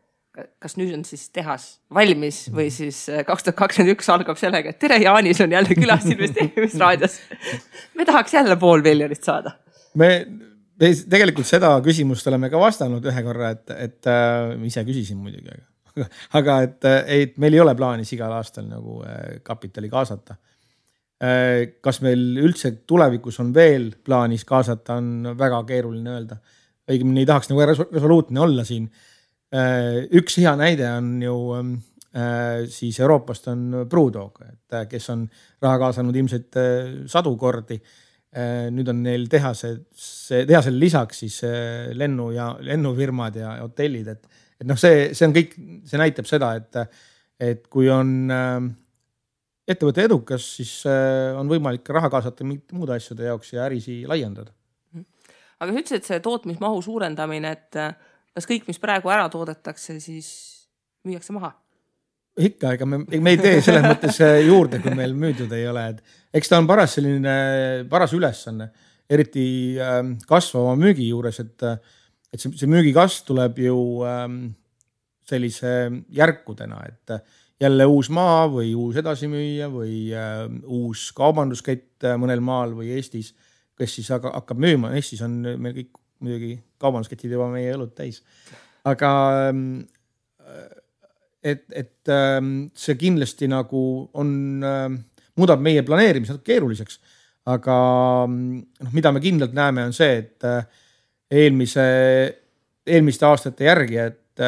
kas nüüd on siis tehas valmis või siis 2021 algab sellega, et tere, Jaanis on jälle külas investeerimisraadios. Me tahaks jälle 500 000 saada. Me tegelikult seda küsimust oleme ka vastanud ühe korra, et ise küsisin muidugi, aga et meil ei ole plaanis igal aastal nagu kapitali kaasata. Kas meil üldse tulevikus on veel plaanis kaasata, on väga keeruline öelda. Õigemini ei tahaks nagu resoluutne olla siin. Üks hea näide on ju siis Euroopast on Brewdog, et kes on raha kaasanud ilmselt 100 kordi. Nüüd on neil tehasel lisaks siis lennufirmad ja hotellid, et see on kõik, see näitab seda, et kui on ettevõte edukas, siis on võimalik raha kaasata muude asjade jaoks ja ärisi laiendada. Aga sa ütlesid, et see tootmismahu suurendamine, et kas kõik, mis praegu ära toodetakse, siis müüakse maha? Ikka, ega me ei tee selles mõttes juurde, kui meil müüdud ei ole. Eks ta on paras ülesanne, eriti kasvava müügi juures, et see müügikasv tuleb ju sellise järkudena, et jälle uus maa või uus edasimüüja või uus kaubanduskett mõnel maal või Eestis, kes siis hakkab müüma. Eestis on meil kõik muidugi kaubandusketid juba meie õlut täis. Aga et see kindlasti nagu muudab meie planeerimise keeruliseks. Aga mida me kindlalt näeme on see, et eelmiste aastate järgi, et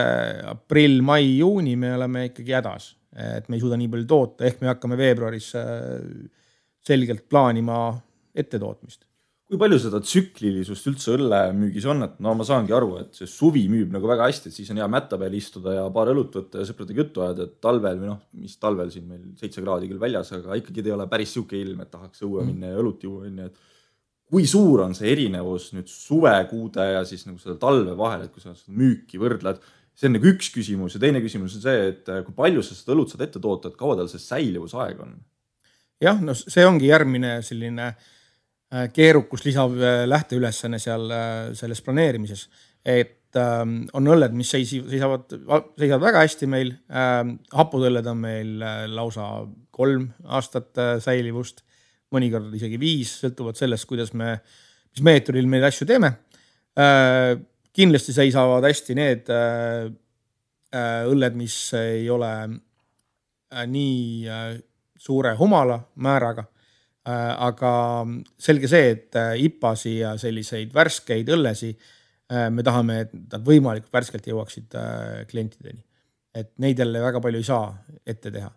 aprill, mai, juuni me oleme ikkagi hädas. Et me ei suuda nii palju toota, ehk me hakkame veebruaris selgelt plaanima ettetootmist. Kui palju seda tsüklilisust üldse õllemüügis on, et ma saangi aru, et see suvi müüb nagu väga hästi, et siis on hea mätta peal istuda ja paar õlut võtta ja sõpradega juttu ajada, et talvel või mis talvel siin meil 7 kraadi küll väljas, aga ikkagi ei ole päris siuke ilm, et tahaks õue minna ja õlut juua. Et kui suur on see erinevus nüüd suvekuude ja siis nagu seda talve vahel, et kui sa seda müüki võrdled, see on nagu üks küsimus ja teine küsimus on see, et kui palju sa seda õlut saad ette toota, et kaua tal see säilivusaeg on? Jah, see ongi järgmine selline keerukus lisav lähteülesanne seal selles planeerimises, et on õlled, mis seisavad väga hästi meil, hapudõlled on meil lausa 3 aastat säilivust, mõnikord isegi 5, sõltuvad sellest, mis meetodil meil asju teeme. Kindlasti seisavad hästi need õlled, mis ei ole nii suure humala määraga, aga selge see, et IPAsi ja selliseid värskeid õllesi me tahame, et nad võimalikult värskelt jõuaksid klientideni. Et neid jälle väga palju ei saa ette teha.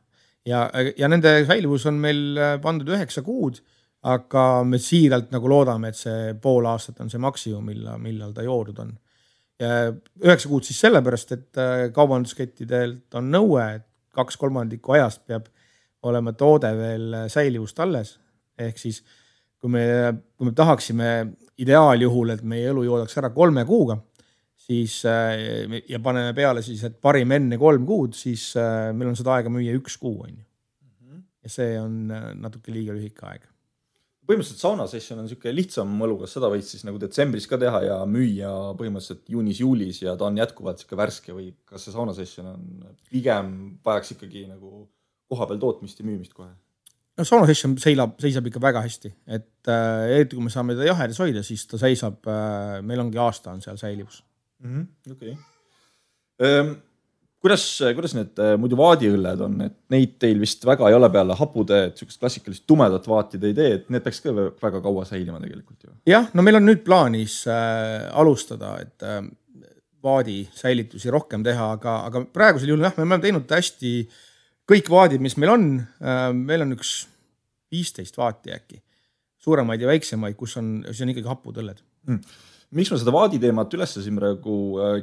Ja nende säilivus on meil pandud 9 kuud, aga me siiralt nagu loodame, et see pool aastat on see maksimum, millal ta joodud on. Ja 9 kuud siis sellepärast, et kaubanduskettidelt on nõue, et 2/3 ajast peab olema toode veel säilivust alles. Ehk siis, kui me tahaksime ideaaljuhul, et meie elu joodaks ära 3 kuuga, siis ja paneme peale siis, et parim enne 3 kuud, siis meil on seda aega müüa 1 kuu, on ju. Ja see on natuke liiga lühike aeg. Põhimõtteliselt sauna session on niisugune lihtsam mõlu, kas seda võid siis nagu detsembris ka teha ja müüa põhimõtteliselt juunis-juulis ja ta on jätkuvalt niisugune värske või kas see sauna session on pigem vajaks ikkagi nagu koha peal tootmist ja müümist kohe? No sauna session seisab ikka väga hästi, et eriti kui me saame ta jahedas hoida, siis ta seisab, meil ongi aasta on seal säilivus. Okay. Kuidas need muidu vaadiõlled on, et neid teil vist väga ei ole peale hapude, et niisugust klassikalist tumedat vaatid ei tee, et need peaks ka väga kaua säilima tegelikult ju. Jah, no meil on nüüd plaanis alustada, et vaadi säilitusi rohkem teha, aga praegusel juhul jah, me oleme teinud hästi kõik vaadid, mis meil on üks 15 vaati äkki, suuremaid ja väiksemaid, kus on ikkagi hapud õlled. Miks ma seda vaadi teemat üles siin praegu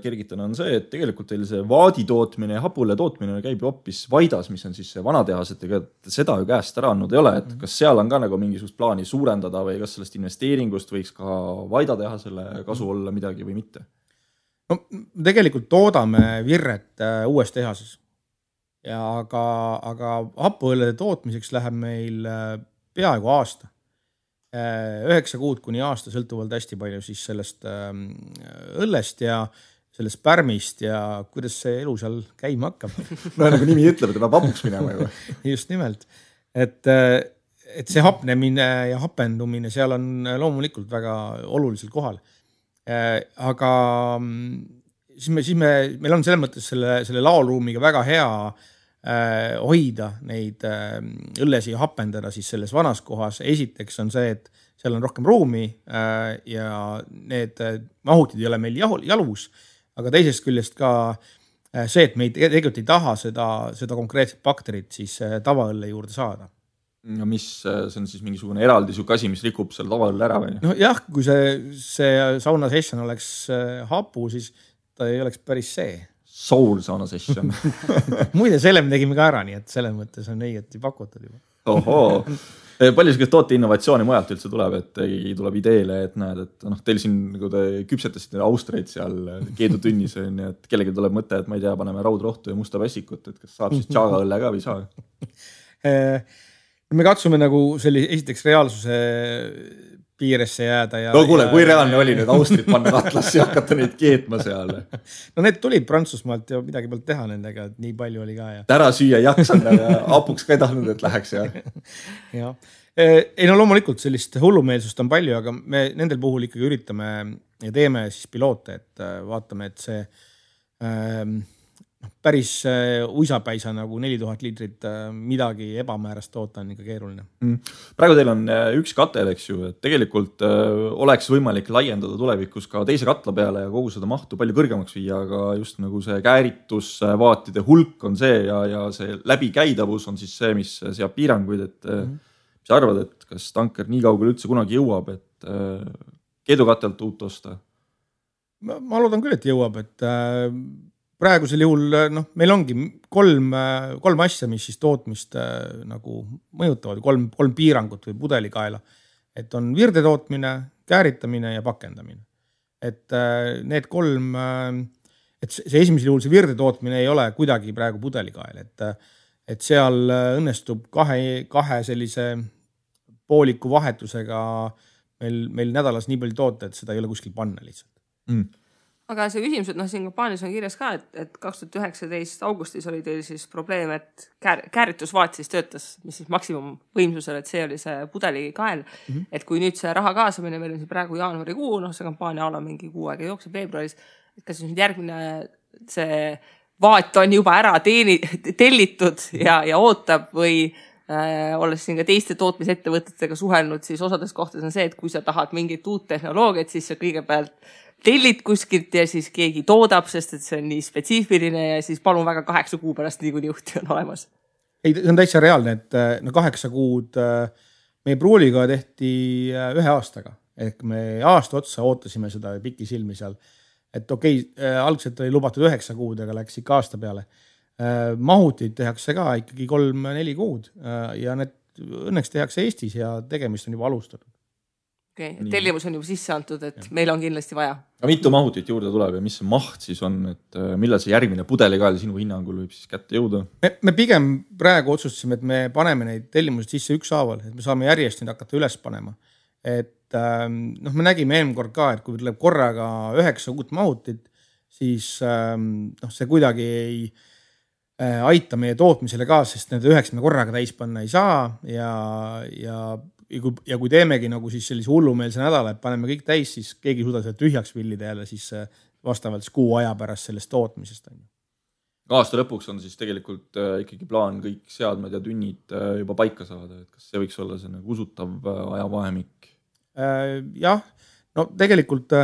kergitan on see, et tegelikult teil see vaadi tootmine ja hapule tootmine käib ju hoopis Vaidas, mis on siis see vanatehas, et seda ju käest ära andnud ei ole, et kas seal on ka nagu mingisugust plaani suurendada või kas sellest investeeringust võiks ka Vaida teha selle kasu olla midagi või mitte? No tegelikult toodame virret uues tehases, aga hapuõllede tootmiseks läheb meil peaaegu aasta. 9 kuud kuni aasta sõltuvalt hästi palju siis sellest õllest ja sellest pärmist ja kuidas see elu seal käima hakkab. No nagu nimi ütleb, et peab hapuks minema juba. Just nimelt. Et see hapnemine ja hapendumine seal on loomulikult väga olulisel kohal. Aga siis meil on selles mõttes selle laolruumiga väga hea hoida neid õllesi ja hapendada siis selles vanas kohas. Esiteks on see, et seal on rohkem ruumi ja need mahutid ei ole meil jalus, aga teisest küljest ka see, et me tegelikult ei taha seda konkreetset bakterit siis tavaõlle juurde saada. Ja mis see on siis mingisugune eraldi siuke asi, mis rikub selle tavaõlle ära või? No jah, kui see sauna session oleks hapu, siis ta ei oleks päris see. Soul sauna session. Muide, selle me tegime ka ära, nii et selles mõttes on õigeti pakutud juba. Ohoo. Palju sellist toote innovatsiooni mujalt üldse tuleb, et tuleb ideele, et näed, et teil siin nagu te küpsetasite Austreid seal keedutünnis, et kellegi tuleb mõte, et ma ei tea, paneme raudrohtu ja musta pässikut, et kas saab siis tšaaga õlle ka või saa? Me katsume nagu esiteks reaalsuse piiresse jääda. No kuule, kui reaalne oli need Austrid panna katlasse ja hakata neid keetma seal? No need tulid Prantsusmaalt ja midagi pealt teha nendega, et nii palju oli ka. Tära süüa jaksanud ja apuks ka ei tahtnud, et läheks. Ja. Ei no loomulikult sellist hullumeelsust on palju, aga me nendel puhul ikkagi üritame ja teeme siis piloote, et vaatame, et see päris uisapäisa nagu 4000 liitrit midagi ebamäärast toota on ikka keeruline. Praegu teil on üks katel, eks ju, et tegelikult oleks võimalik laiendada tulevikus ka teise katla peale ja kogu seda mahtu palju kõrgemaks viia, aga just nagu see kääritusvaatide hulk on see ja see läbikäidavus on siis see, mis seab piiranguid, et mis arvad, et kas tanker nii kaugel üldse kunagi jõuab, et keedukatelt uut osta? Ma loodan küll, et jõuab, et praegusel juhul meil ongi kolm asja, mis siis tootmist nagu mõjutavad, kolm piirangut või pudelikaela. Et on virde tootmine, kääritamine ja pakendamine. Et need kolm, et see esimesel juhul see virde tootmine ei ole kuidagi praegu pudelikael. Et seal õnnestub kahe sellise pooliku vahetusega meil nädalas nii palju toota, et seda ei ole kuskil panna lihtsalt. Aga see küsimus, et siin kampaanias on kirjas ka, et 2019 augustis oli teil siis probleem, et kääritusvaat siis töötas, mis siis maksimum võimsusel, et see oli see pudelikael. Et kui nüüd see raha kaasamine, meil on siin praegu jaanuarikuu, see kampaania ala mingi kuu aega jookseb veebruaris, et kas nüüd järgmine see vaat on juba ära tellitud ja ootab või olles siin ka teiste tootmisettevõtetega suhelnud, siis osades kohtades on see, et kui sa tahad mingit uut tehnoloogiat, siis sa kõigepealt tellid kuskilt ja siis keegi toodab, sest et see on nii spetsiifiline ja siis palun väga 8 kuu pärast nii kuni juhti on olemas. Ei, see on täitsa reaalne, et 8 kuud meie pruuliga tehti 1 aastaga. Ehk me aasta otsa ootasime seda pikki silmi seal. Et okei, algselt oli lubatud 9 kuud, aga läks ikka aasta peale. Mahutid tehakse ka ikkagi 3-4 kuud ja need õnneks tehakse Eestis ja tegemist on juba alustatud. tellimus on juba sisse antud, et meil on kindlasti vaja. Aga mitu mahutit juurde tuleb ja mis see maht siis on, et millal see järgmine pudelikael sinu hinnangul võib siis kätte jõuda? Me pigem praegu otsustasime, et me paneme neid tellimused sisse ükshaaval, et me saame järjest neid hakata üles panema. Et me nägime eelmine kord ka, et kui tuleb korraga 9 uut mahutit, siis see kuidagi ei aita meie tootmisele ka, sest need 9 me korraga täis panna ei saa ja kui teemegi nagu siis sellise hullumeelse nädala, et paneme kõik täis, siis keegi suuda seda tühjaks villida jälle siis vastavalt kuu aja pärast sellest tootmisest. Aasta lõpuks on siis tegelikult ikkagi plaan kõik seadmed ja tünnid juba paika saada, et kas see võiks olla see nagu usutav ajavahemik? Jah, no tegelikult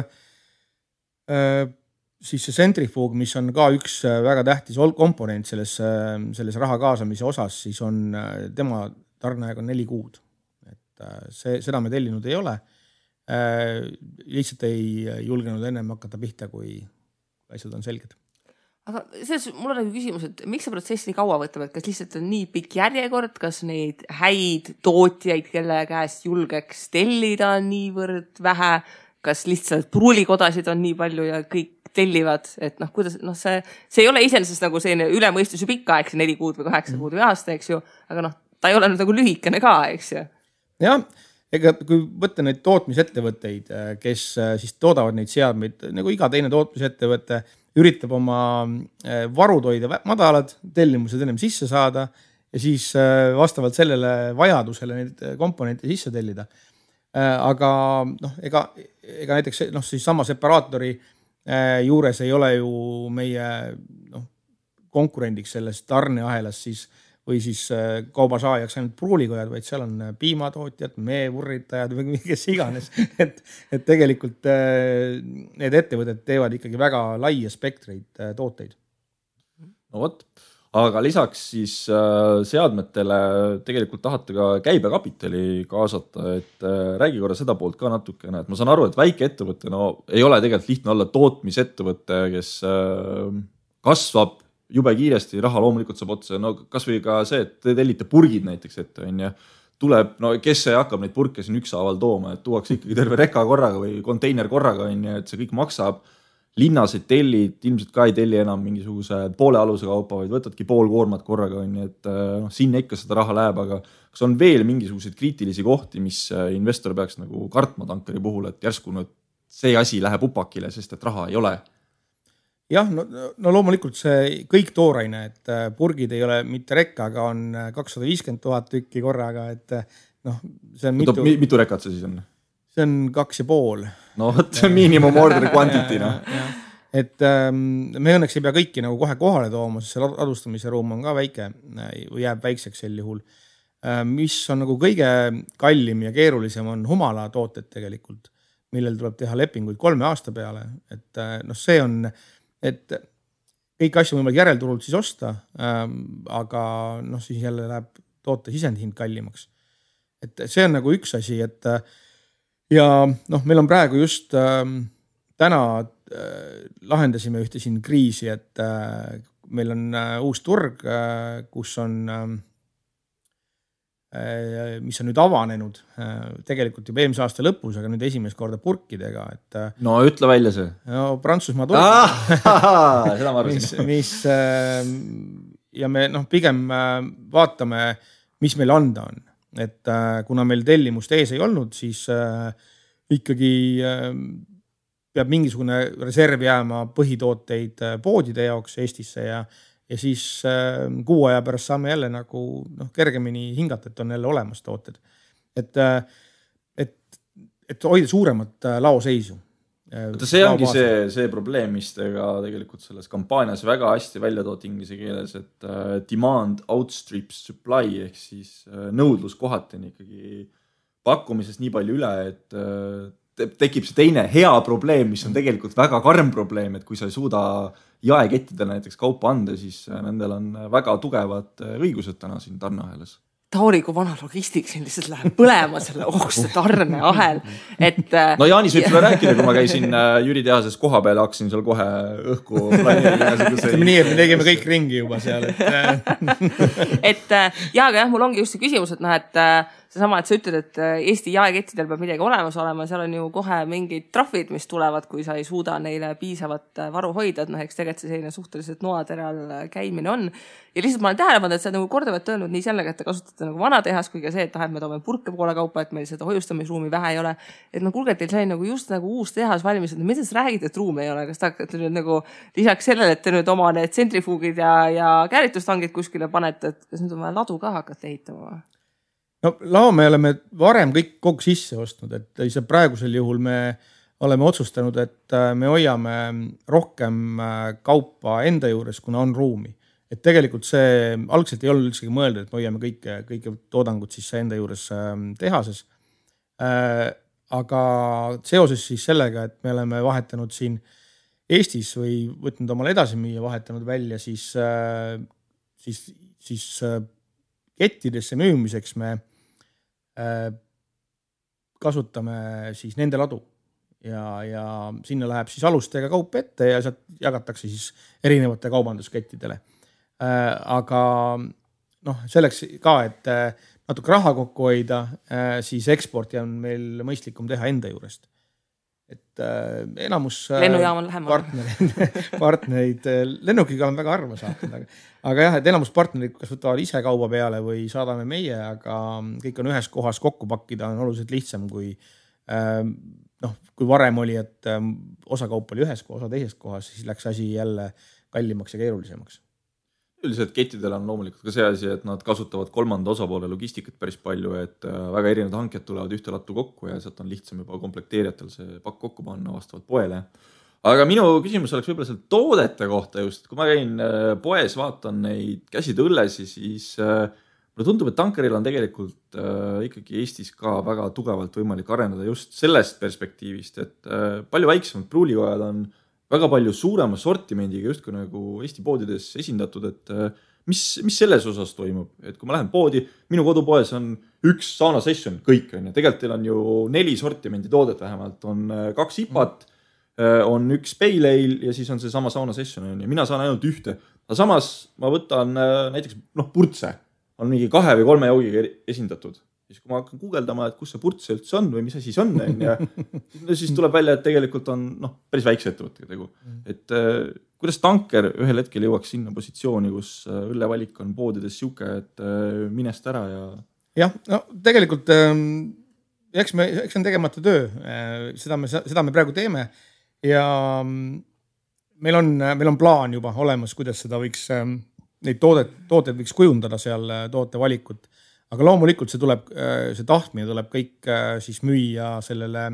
siis see centrifuug, mis on ka üks väga tähtis komponent selles raha kaasamise osas, siis on tema tarneaeg on 4 kuud. Seda me tellinud ei ole. Lihtsalt ei julgenud ennem hakata pihta, kui asjad on selged. Aga mul on küsimus, et miks see protsess nii kaua võtab, et kas lihtsalt on nii pikk järjekord, kas neid häid tootjaid, kelle käest julgeks tellida niivõrd vähe, kas lihtsalt pruulikodasid on nii palju ja kõik tellivad, et kuidas, see ei ole iseenesest nagu selline ülemõistus ju pikka aeg, 4 kuud või 8 kuud või aasta, eks ju, aga ta ei ole nagu lühikene ka, eks ju. Jah, ega kui võtta neid tootmisettevõtteid, kes siis toodavad neid seadmeid, nagu iga teine tootmisettevõte üritab oma varud hoida madalad, tellimused ennem sisse saada ja siis vastavalt sellele vajadusele neid komponente sisse tellida. Aga ega näiteks siis sama separaatori juures ei ole ju meie konkurendiks selles tarneahelas siis või siis kaubasaajaks ainult pruulikojad, vaid seal on piimatootjad, meevurritajad või kes iganes. Et tegelikult need ettevõtted teevad ikkagi väga laia spektreid tooteid. No võt, aga lisaks siis seadmetele tegelikult tahate ka käibekapitali kaasata, et räägi korra seda poolt ka natukene, et ma saan aru, et väike ettevõte ei ole tegelikult lihtne olla tootmisettevõte, kes kasvab jube kiiresti, raha loomulikult saab otsa, kas või ka see, et te tellite purgid näiteks ette, tuleb, kes see hakkab neid purke siin ükshaaval tooma, et tuuakse ikkagi terve reka korraga või konteiner korraga, et see kõik maksab, linnas ei tellid, ilmselt ka ei telli enam mingisuguse poole aluse kaupa, vaid võtadki pool koormat korraga, et sinna ikka seda raha läheb, aga kas on veel mingisuguseid kriitilisi kohti, mis investor peaks nagu kartma tankeri puhul, et järsku see asi läheb upakile, sest et raha ei ole? Jah, no loomulikult see kõik tooraine, et purgid ei ole mitte rekka, aga on 250 000 tükki korraga, et see on mitu rekat see siis on? See on 2,5. No see on minimum order quantity. Et me õnneks ei pea kõiki nagu kohe kohale tooma, sest see ladustamise ruum on ka väike või jääb väikseks sel juhul. Mis on nagu kõige kallim ja keerulisem on humala tooted tegelikult, millel tuleb teha lepinguid 3 aasta peale. Et see on et kõik asju võimalik järelturult siis osta, aga siis jälle läheb toote sisendhind kallimaks. Et see on nagu üks asi, et ja meil on praegu just täna lahendasime ühte siin kriisi, et meil on uus turg, kus on mis on nüüd avanenud tegelikult juba eelmise aasta lõpus, aga nüüd esimest korda purkidega. Et, no ütle välja see. No Prantsusmaa turg. Seda ma arvasin. Ja me pigem vaatame, mis meil anda on. Et kuna meil tellimust ees ei olnud, siis ikkagi peab mingisugune reserv jääma põhitooteid poodide jaoks Eestisse ja siis kuu aja pärast saame jälle nagu kergemini hingata, et on jälle olemas tooted. Et hoida suuremat laoseisu. See ongi see probleem, mis tega tegelikult selles kampaanias väga hästi välja toot inglise keeles, et demand outstrips supply ehk siis nõudlus kohati on ikkagi pakkumisest nii palju üle, et tekib see teine hea probleem, mis on tegelikult väga karm probleem, et kui sa ei suuda jaekettidele näiteks kaupa anda, siis nendel on väga tugevad õigused täna siin tarneahelas. Tauri, kui vana logistik siin lihtsalt läheb põlema selle ohkuse tarneahel. No Jaanis võib sulle rääkida, kui ma käisin Jüri tehases koha peal, hakkasin seal kohe õhku planeerida. Nii, et me tegime kõik ringi juba seal. Aga jah, mul ongi just see küsimus, et seesama, et sa ütled, et Eesti jaekettidel peab midagi olemas olema, seal on ju kohe mingid trahvid, mis tulevad, kui sa ei suuda neile piisavat varu hoida, et eks tegelikult see selline suhteliselt noateral käimine on. Ja lihtsalt ma olen tähele pannud, et sa nagu kordavalt öelnud nii sellega, et te kasutate nagu vana tehas, kui ka see, et me toome purke poole kaupa, et meil seda hoiustamisruumi vähe ei ole. Et kuulge, teil sai nagu just nagu uus tehas valmis, et mida sa räägid, et ruumi ei ole? Kas te hakkate nüüd nagu lisaks sellele, et te nüüd oma need tsentrifuugid ja käärituστangid kuskile panete, et kas nüüd on vaja ladu ka hakata ehitama? No lao me oleme varem kõik kogu sisse ostnud, et praegusel juhul me oleme otsustanud, et me hoiame rohkem kaupa enda juures, kuna on ruumi. Et tegelikult see algselt ei olnud üldsegi mõeldud, et me hoiame kõike toodangut siis enda juures tehases. Aga seoses siis sellega, et me oleme vahetanud siin Eestis või võtnud omale edasi müüa, vahetanud välja siis kettidesse müümiseks me kasutame siis nende ladu ja sinna läheb siis alustega kaup ette ja sealt jagatakse siis erinevate kaubanduskettidele. Aga selleks ka, et natuke raha kokku hoida, siis eksporti on meil mõistlikum teha enda juurest. Et enamus lennujaam on lähemal. Partnerid lennukiga on väga harva saanud, aga jah, et enamus partnerid kas võtavad ise kauba peale või saadame meie, aga kõik on ühes kohas kokku pakkida on oluliselt lihtsam kui varem oli, et osa kaup oli ühes kohas, osa teises kohas, siis läks asi jälle kallimaks ja keerulisemaks. Üldiselt kettidel on loomulikult ka see asi, et nad kasutavad kolmanda osapoole logistikat päris palju, et väga erinevad hanked tulevad ühte lattu kokku ja sealt on lihtsam juba komplekteerijatel see pakk kokku panna vastavalt poele. Aga minu küsimus oleks võib-olla seal toodete kohta just, kui ma käin poes, vaatan neid käsitööllesi, siis mulle tundub, et tankeril on tegelikult ikkagi Eestis ka väga tugevalt võimalik arendada just sellest perspektiivist, et palju väiksemad pruulikojad on väga palju suurema sortimendiga just kui nagu Eesti poodides esindatud, et mis selles osas toimub, et kui ma lähen poodi, minu kodupoes on üks sauna session, kõik on ja tegelikult teil on ju 4 sortimendi toodet vähemalt, on 2 IPAt, on üks pale ale ja siis on see sama sauna session ja mina saan ainult ühte, aga samas ma võtan näiteks purtse, on mingi 2 või 3 joogiga esindatud. Siis kui ma hakkan guugeldama, et kus see purtse üldse on või mis asi see on, ja siis tuleb välja, et tegelikult on päris väikse ettevõttega tegu. Et kuidas tanker ühel hetkel jõuaks sinna positsiooni, kus õllevalik on poodides siuke, et minest ära ja... Jah, tegelikult eks on tegemata töö. Seda me praegu teeme ja meil on plaan juba olemas, kuidas seda võiks, neid tooted võiks kujundada seal tootevalikut. Aga loomulikult see tahtmine tuleb kõik siis müüa sellele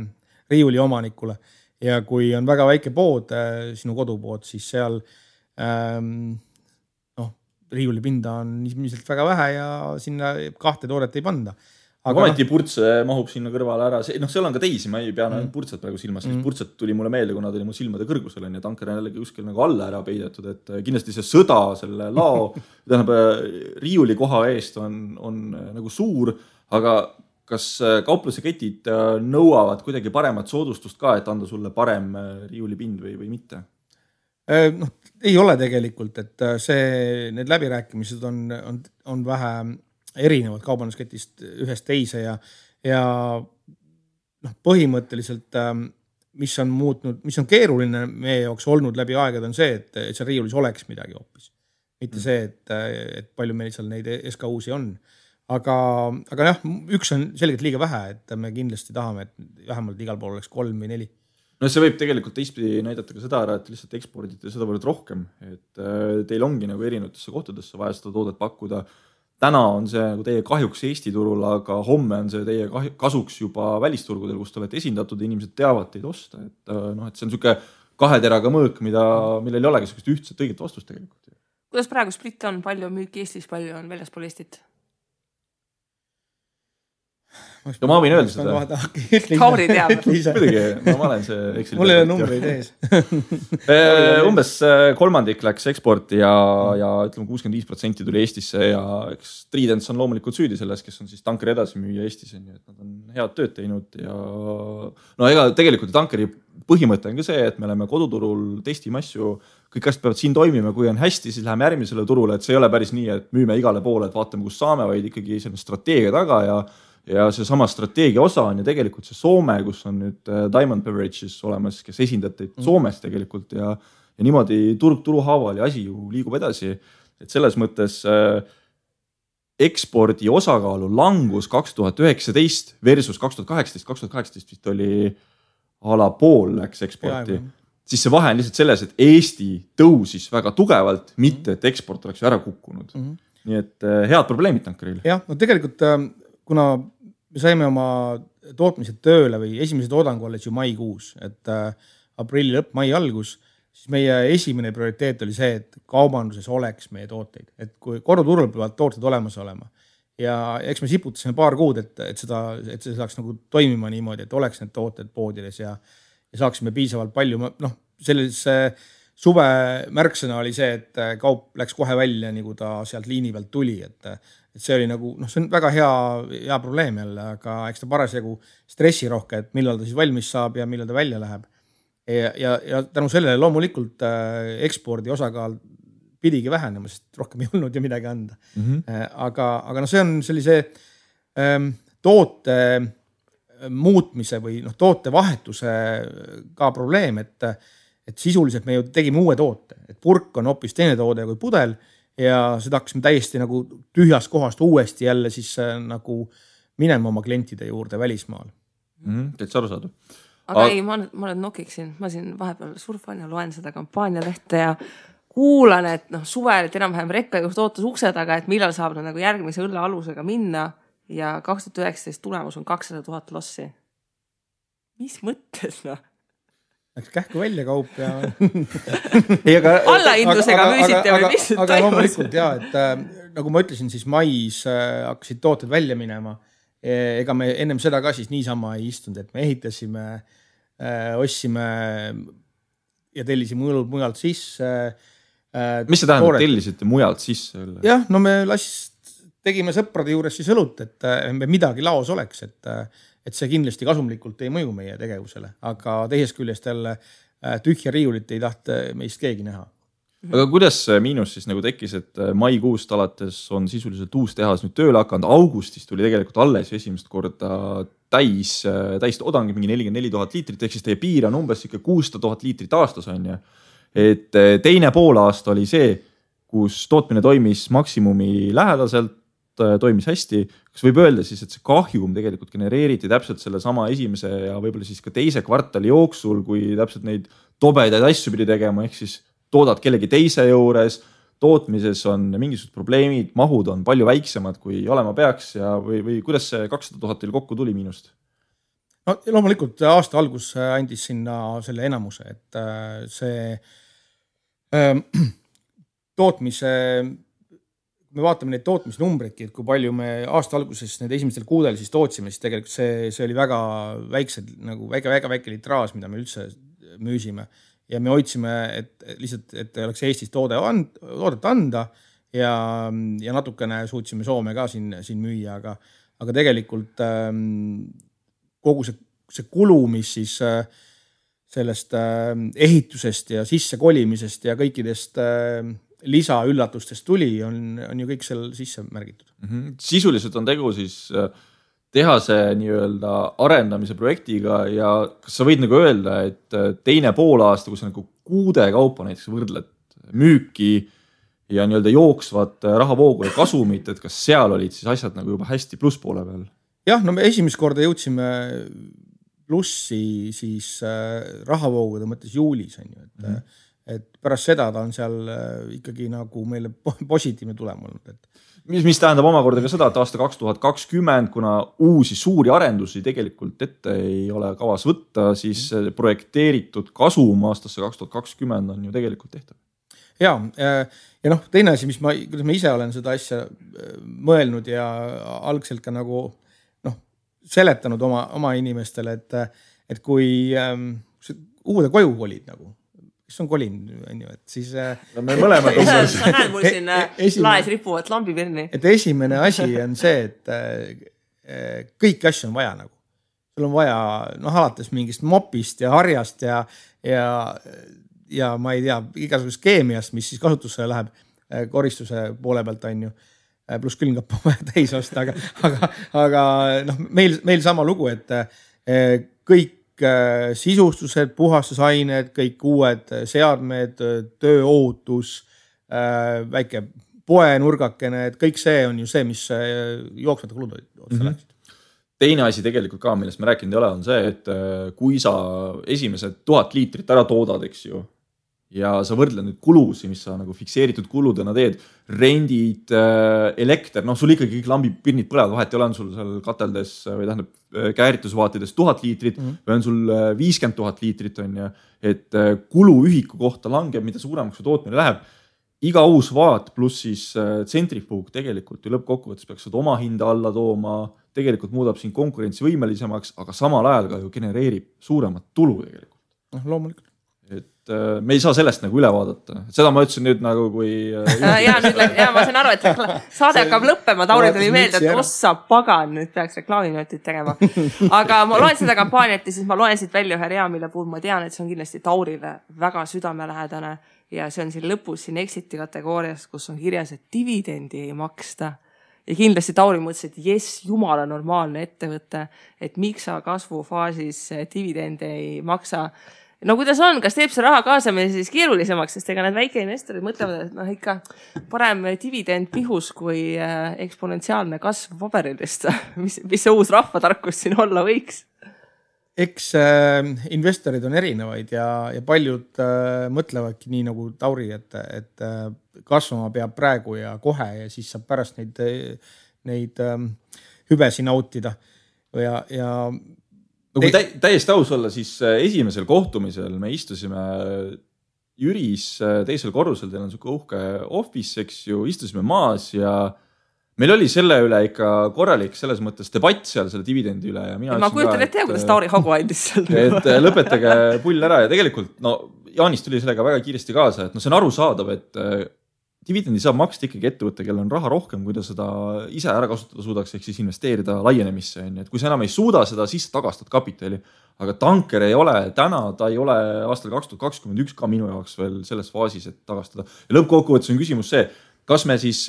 riiuli omanikule. Ja kui on väga väike pood, sinu kodupood, siis seal riiulipinda on ilmselt väga vähe ja sinna 2 toodet ei panda. Aga ometi purtse mahub sinna kõrvale ära. Seal on ka teisi, ma ei pea purtset praegu silmas. Purtset tuli mulle meelde, kuna ta oli mu silmade kõrgusel ja tanker on jällegi kuskil nagu alla ära peidetud, et kindlasti see sõda selle lao riiuli koha eest on nagu suur, aga kas kaupluse ketid nõuavad kuidagi paremat soodustust ka, et anda sulle parem riiulipind või mitte? Ei ole tegelikult, et need läbirääkimised on vähe erinevad kaubandusketist ühest teise ja põhimõtteliselt mis on keeruline meie jaoks olnud läbi aegade on see, et seal riiulis oleks midagi hoopis. Mitte see, et palju meil seal neid SKU-si on. Aga jah, üks on selgelt liiga vähe, et me kindlasti tahame, et vähemalt igal pool oleks 3 või 4. See võib tegelikult teistpidi näidata ka seda ära, et lihtsalt ekspordite seda võrd rohkem, et teil ongi nagu erinevatesse kohtadesse vaja seda toodet pakkuda. Täna on see nagu teie kahjuks Eesti turul, aga homme on see teie kasuks juba välisturgudel, kus te olete esindatud ja inimesed teavad teid osta. Et see on niisugune 2 teraga mõõk, millel ei olegi sellist ühtset õiget vastust tegelikult. Kuidas praegu split on? Palju müüki Eestis, palju on väljaspool Eestit? Ja ma võin öelda seda. Tauri teab. Muidugi, ma olen see Exceli. Mul ei ole numbreid ees. Umbes 1/3 läks eksporti ja ütleme 65% tuli Eestisse ja eks Tridents on loomulikult süüdi selles, kes on siis tankeri edasi müüa Eestis, et nad on head tööd teinud ja ega tegelikult tankeri põhimõte on ka see, et me oleme koduturul, testime asju, kõik asjad peavad siin toimima, kui on hästi, siis läheme järgmisele turule, et see ei ole päris nii, et müüme igale poole, et vaatame, kus saame, vaid ikkagi selline strateegia taga ja ja see sama strateegia osa on ju tegelikult see Soome, kus on nüüd Diamond Beverages olemas, kes esindab teid Soomes tegelikult ja niimoodi turg haaval ja asi ju liigub edasi. Et selles mõttes ekspordi osakaalu langus 2019 versus 2018 vist oli ala pool läks eksporti. Siis see vahe on lihtsalt selles, et Eesti tõusis väga tugevalt, mitte et eksport oleks ära kukkunud. Nii et head probleemid tankeril. Jah, no tegelikult kuna me saime oma tootmised tööle või esimese toodangu alles ju maikuus, et aprilli lõpp, mai algus, siis meie esimene prioriteet oli see, et kaubanduses oleks meie tooteid. Et kui koduturul peavad tooted olemas olema ja eks me siputasime paar kuud, et see saaks nagu toimima niimoodi, et oleks need tooted poodides ja saaksime piisavalt palju. Sellise suve märksõna oli see, et kaup läks kohe välja, nagu ta sealt liini pealt tuli, et see oli nagu, see on väga hea probleem jälle, aga eks ta parasjagu stressirohke, et millal ta siis valmis saab ja millal ta välja läheb. Ja tänu sellele loomulikult ekspordi osakaal pidigi vähenema, sest rohkem ei olnud ju midagi anda. Aga see on sellise toote muutmise või toote vahetuse ka probleem, et sisuliselt me ju tegime uue toote, et purk on hoopis teine toode kui pudel ja seda hakkasime täiesti nagu tühjast kohast uuesti jälle siis nagu minema oma klientide juurde välismaal. Täitsa aru saada. Aga ei, ma nüüd nokiksin, ma siin vahepeal surfan ja loen seda kampaanialehte ja kuulan, et suvel, et enam-vähem rekka just ootas ukse taga, et millal saab nagu järgmise õlle alusega minna ja 2019 tulemus on 200,000 lossi. Mis mõttes, Läks kähku välja kaup ja allaindusega müüsite või mis aga loomulikult jah, et nagu ma ütlesin, siis mais hakkasid tooted välja minema. Ega me ennem seda ka siis niisama ei istunud, et me ehitasime, ostsime ja tellisime õlud mujalt sisse. Mis see tähendab, tellisite mujalt sisse? Jah, me tegime sõprade juures siis õlut, et midagi laos oleks, et see kindlasti kasumlikult ei mõju meie tegevusele, aga teisest küljest jälle tühja riiulit ei tahta meist keegi näha. Aga kuidas miinus siis nagu tekkis, et maikuust alates on sisuliselt uus tehas nüüd tööle hakanud, augustis tuli tegelikult alles esimest korda täis toodangi mingi 44,000 liitrit, ehk siis teie piir on umbes 600,000 liitrit aastas on ja. Et teine pool aasta oli see, kus tootmine toimis maksimumi lähedaselt, toimis hästi. Kas võib öelda siis, et see kahjum tegelikult genereeriti täpselt selle sama esimese ja võib-olla siis ka teise kvartali jooksul, kui täpselt neid tobedaid asju pidi tegema, ehk siis toodad kellegi teise juures, tootmises on mingisugused probleemid, mahud on palju väiksemad, kui olema peaks ja või kuidas see 200,000 teil kokku tuli miinust? No loomulikult aasta algus andis sinna selle enamuse, et see tootmise me vaatame neid tootmisnumbreidki, et kui palju me aasta alguses need esimestel kuudel siis tootsime, siis tegelikult see oli väga väiksed, nagu väga väike litraas, mida me üldse müüsime. Ja me hoidsime, et lihtsalt, et oleks Eestis toodet anda ja natukene suutsime Soome ka siin müüa, aga tegelikult kogu see kulu, mis siis sellest ehitusest ja sisse kolimisest ja kõikidest lisaüllatustest tuli, on ju kõik seal sisse märgitud. Sisuliselt on tegu siis tehase nii-öelda arendamise projektiga ja kas sa võid nagu öelda, et teine pool aasta, kus nagu kuude kaupa näiteks võrdled müüki ja nii-öelda jooksvat rahavoogu ja kasumit, et kas seal olid siis asjad nagu juba hästi plusspoole peal? Jah, me esimest korda jõudsime plussi siis rahavoogude mõttes juulis, on ju, et pärast seda ta on seal ikkagi nagu meile positiivne tulem olnud. Mis tähendab omakorda ka seda, et aasta 2020, kuna uusi suuri arendusi tegelikult ette ei ole kavas võtta, siis projekteeritud kasum aastasse 2020 on ju tegelikult tehtav. Ja teine asi, kuidas ma ise olen seda asja mõelnud ja algselt ka nagu seletanud oma inimestele, et kui uude koju kolid nagu, kes on kolin, et siis me mõlemad sa näed mul siin laes ripuvad lambipirni. Et esimene asi on see, et kõiki asju on vaja nagu. Sul on vaja alates mingist mopist ja harjast ja ma ei tea, igasugust keemiast, mis siis kasutusse läheb koristuse poole pealt on ju. pluss külmkapp on vaja täis osta, aga noh, meil sama lugu, et kõik sisustused, puhastusained, kõik uued seadmed, tööohutus, väike poenurgakene, et kõik see on ju see, mis jooksvate kulud otsa läksid. Teine asi tegelikult ka, millest me rääkinud ei ole, on see, et kui sa esimesed 1000 liitrit ära toodad, eks ju, ja sa võrdled nüüd kulusi, mis sa nagu fikseeritud kuludena teed, rendid, elekter, noh, sul ikkagi kõik lambipirnid põlevad, vahet ei ole, on sul seal kateldes või tähendab kääritusvaatides 1000 liitrit või on sul 50 000 liitrit, on ju, et kuluühiku kohta langeb, mida suuremaks su tootmine läheb. Iga uus vaat pluss siis tsentrifuug tegelikult ju lõppkokkuvõttes peaks seda oma hinda alla tooma, tegelikult muudab siin konkurentsivõimelisemaks, aga samal ajal ka ju genereerib suuremat tulu tegelikult. No, loomulikult. Et me ei saa sellest nagu üle vaadata. Seda ma ütlesin nüüd nagu kui... ma saan aru, et saade hakkab lõppema. Tauri tuli meelde, et ossa pagan, nüüd peaks reklaamiminutit tegema. Aga ma loen seda kampaaniat ja siis ma loen siit välja ühe rea, mille puhul ma tean, et see on kindlasti Taurile väga südamelähedane ja see on siin lõpus siin exiti kategoorias, kus on kirjas, et dividendi ei maksta. Ja kindlasti Tauri mõtles, et jess, jumala normaalne ettevõte, et miks sa kasvufaasis dividende ei maksa. No kuidas on, kas teeb see raha kaasamine siis keerulisemaks, sest ega need väikeinvestorid mõtlevad, et noh ikka parem dividend pihus kui eksponentsiaalne kasv paberilist. Mis see uus rahvatarkus siin olla võiks? Eks investorid on erinevaid ja paljud mõtlevadki nii nagu Tauri, et kasvama peab praegu ja kohe ja siis saab pärast neid hüvesi nautida. Ja no kui täiesti aus olla, siis esimesel kohtumisel me istusime Jüris teisel korrusel, teil on suke uhke office, eks ju, istusime maas ja meil oli selle üle ikka korralik selles mõttes debatt seal selle dividendi üle. Ja ma kujutan ette, kuidas Tauri hagu andis seal. Et lõpetage pull ära ja tegelikult Jaanis tuli sellega väga kiiresti kaasa, et see on arusaadav, et dividendi saab maksta ikkagi ettevõtte, kellel on raha rohkem, kui ta seda ise ära kasutada suudaks, ehk siis investeerida laienemisse. Et kui sa enam ei suuda seda, siis tagastad kapitali. Aga tanker ei ole täna, ta ei ole aastal 2021 ka minu jaoks veel selles faasis, et tagastada. Ja lõppkokkuvõttes on küsimus see, kas me siis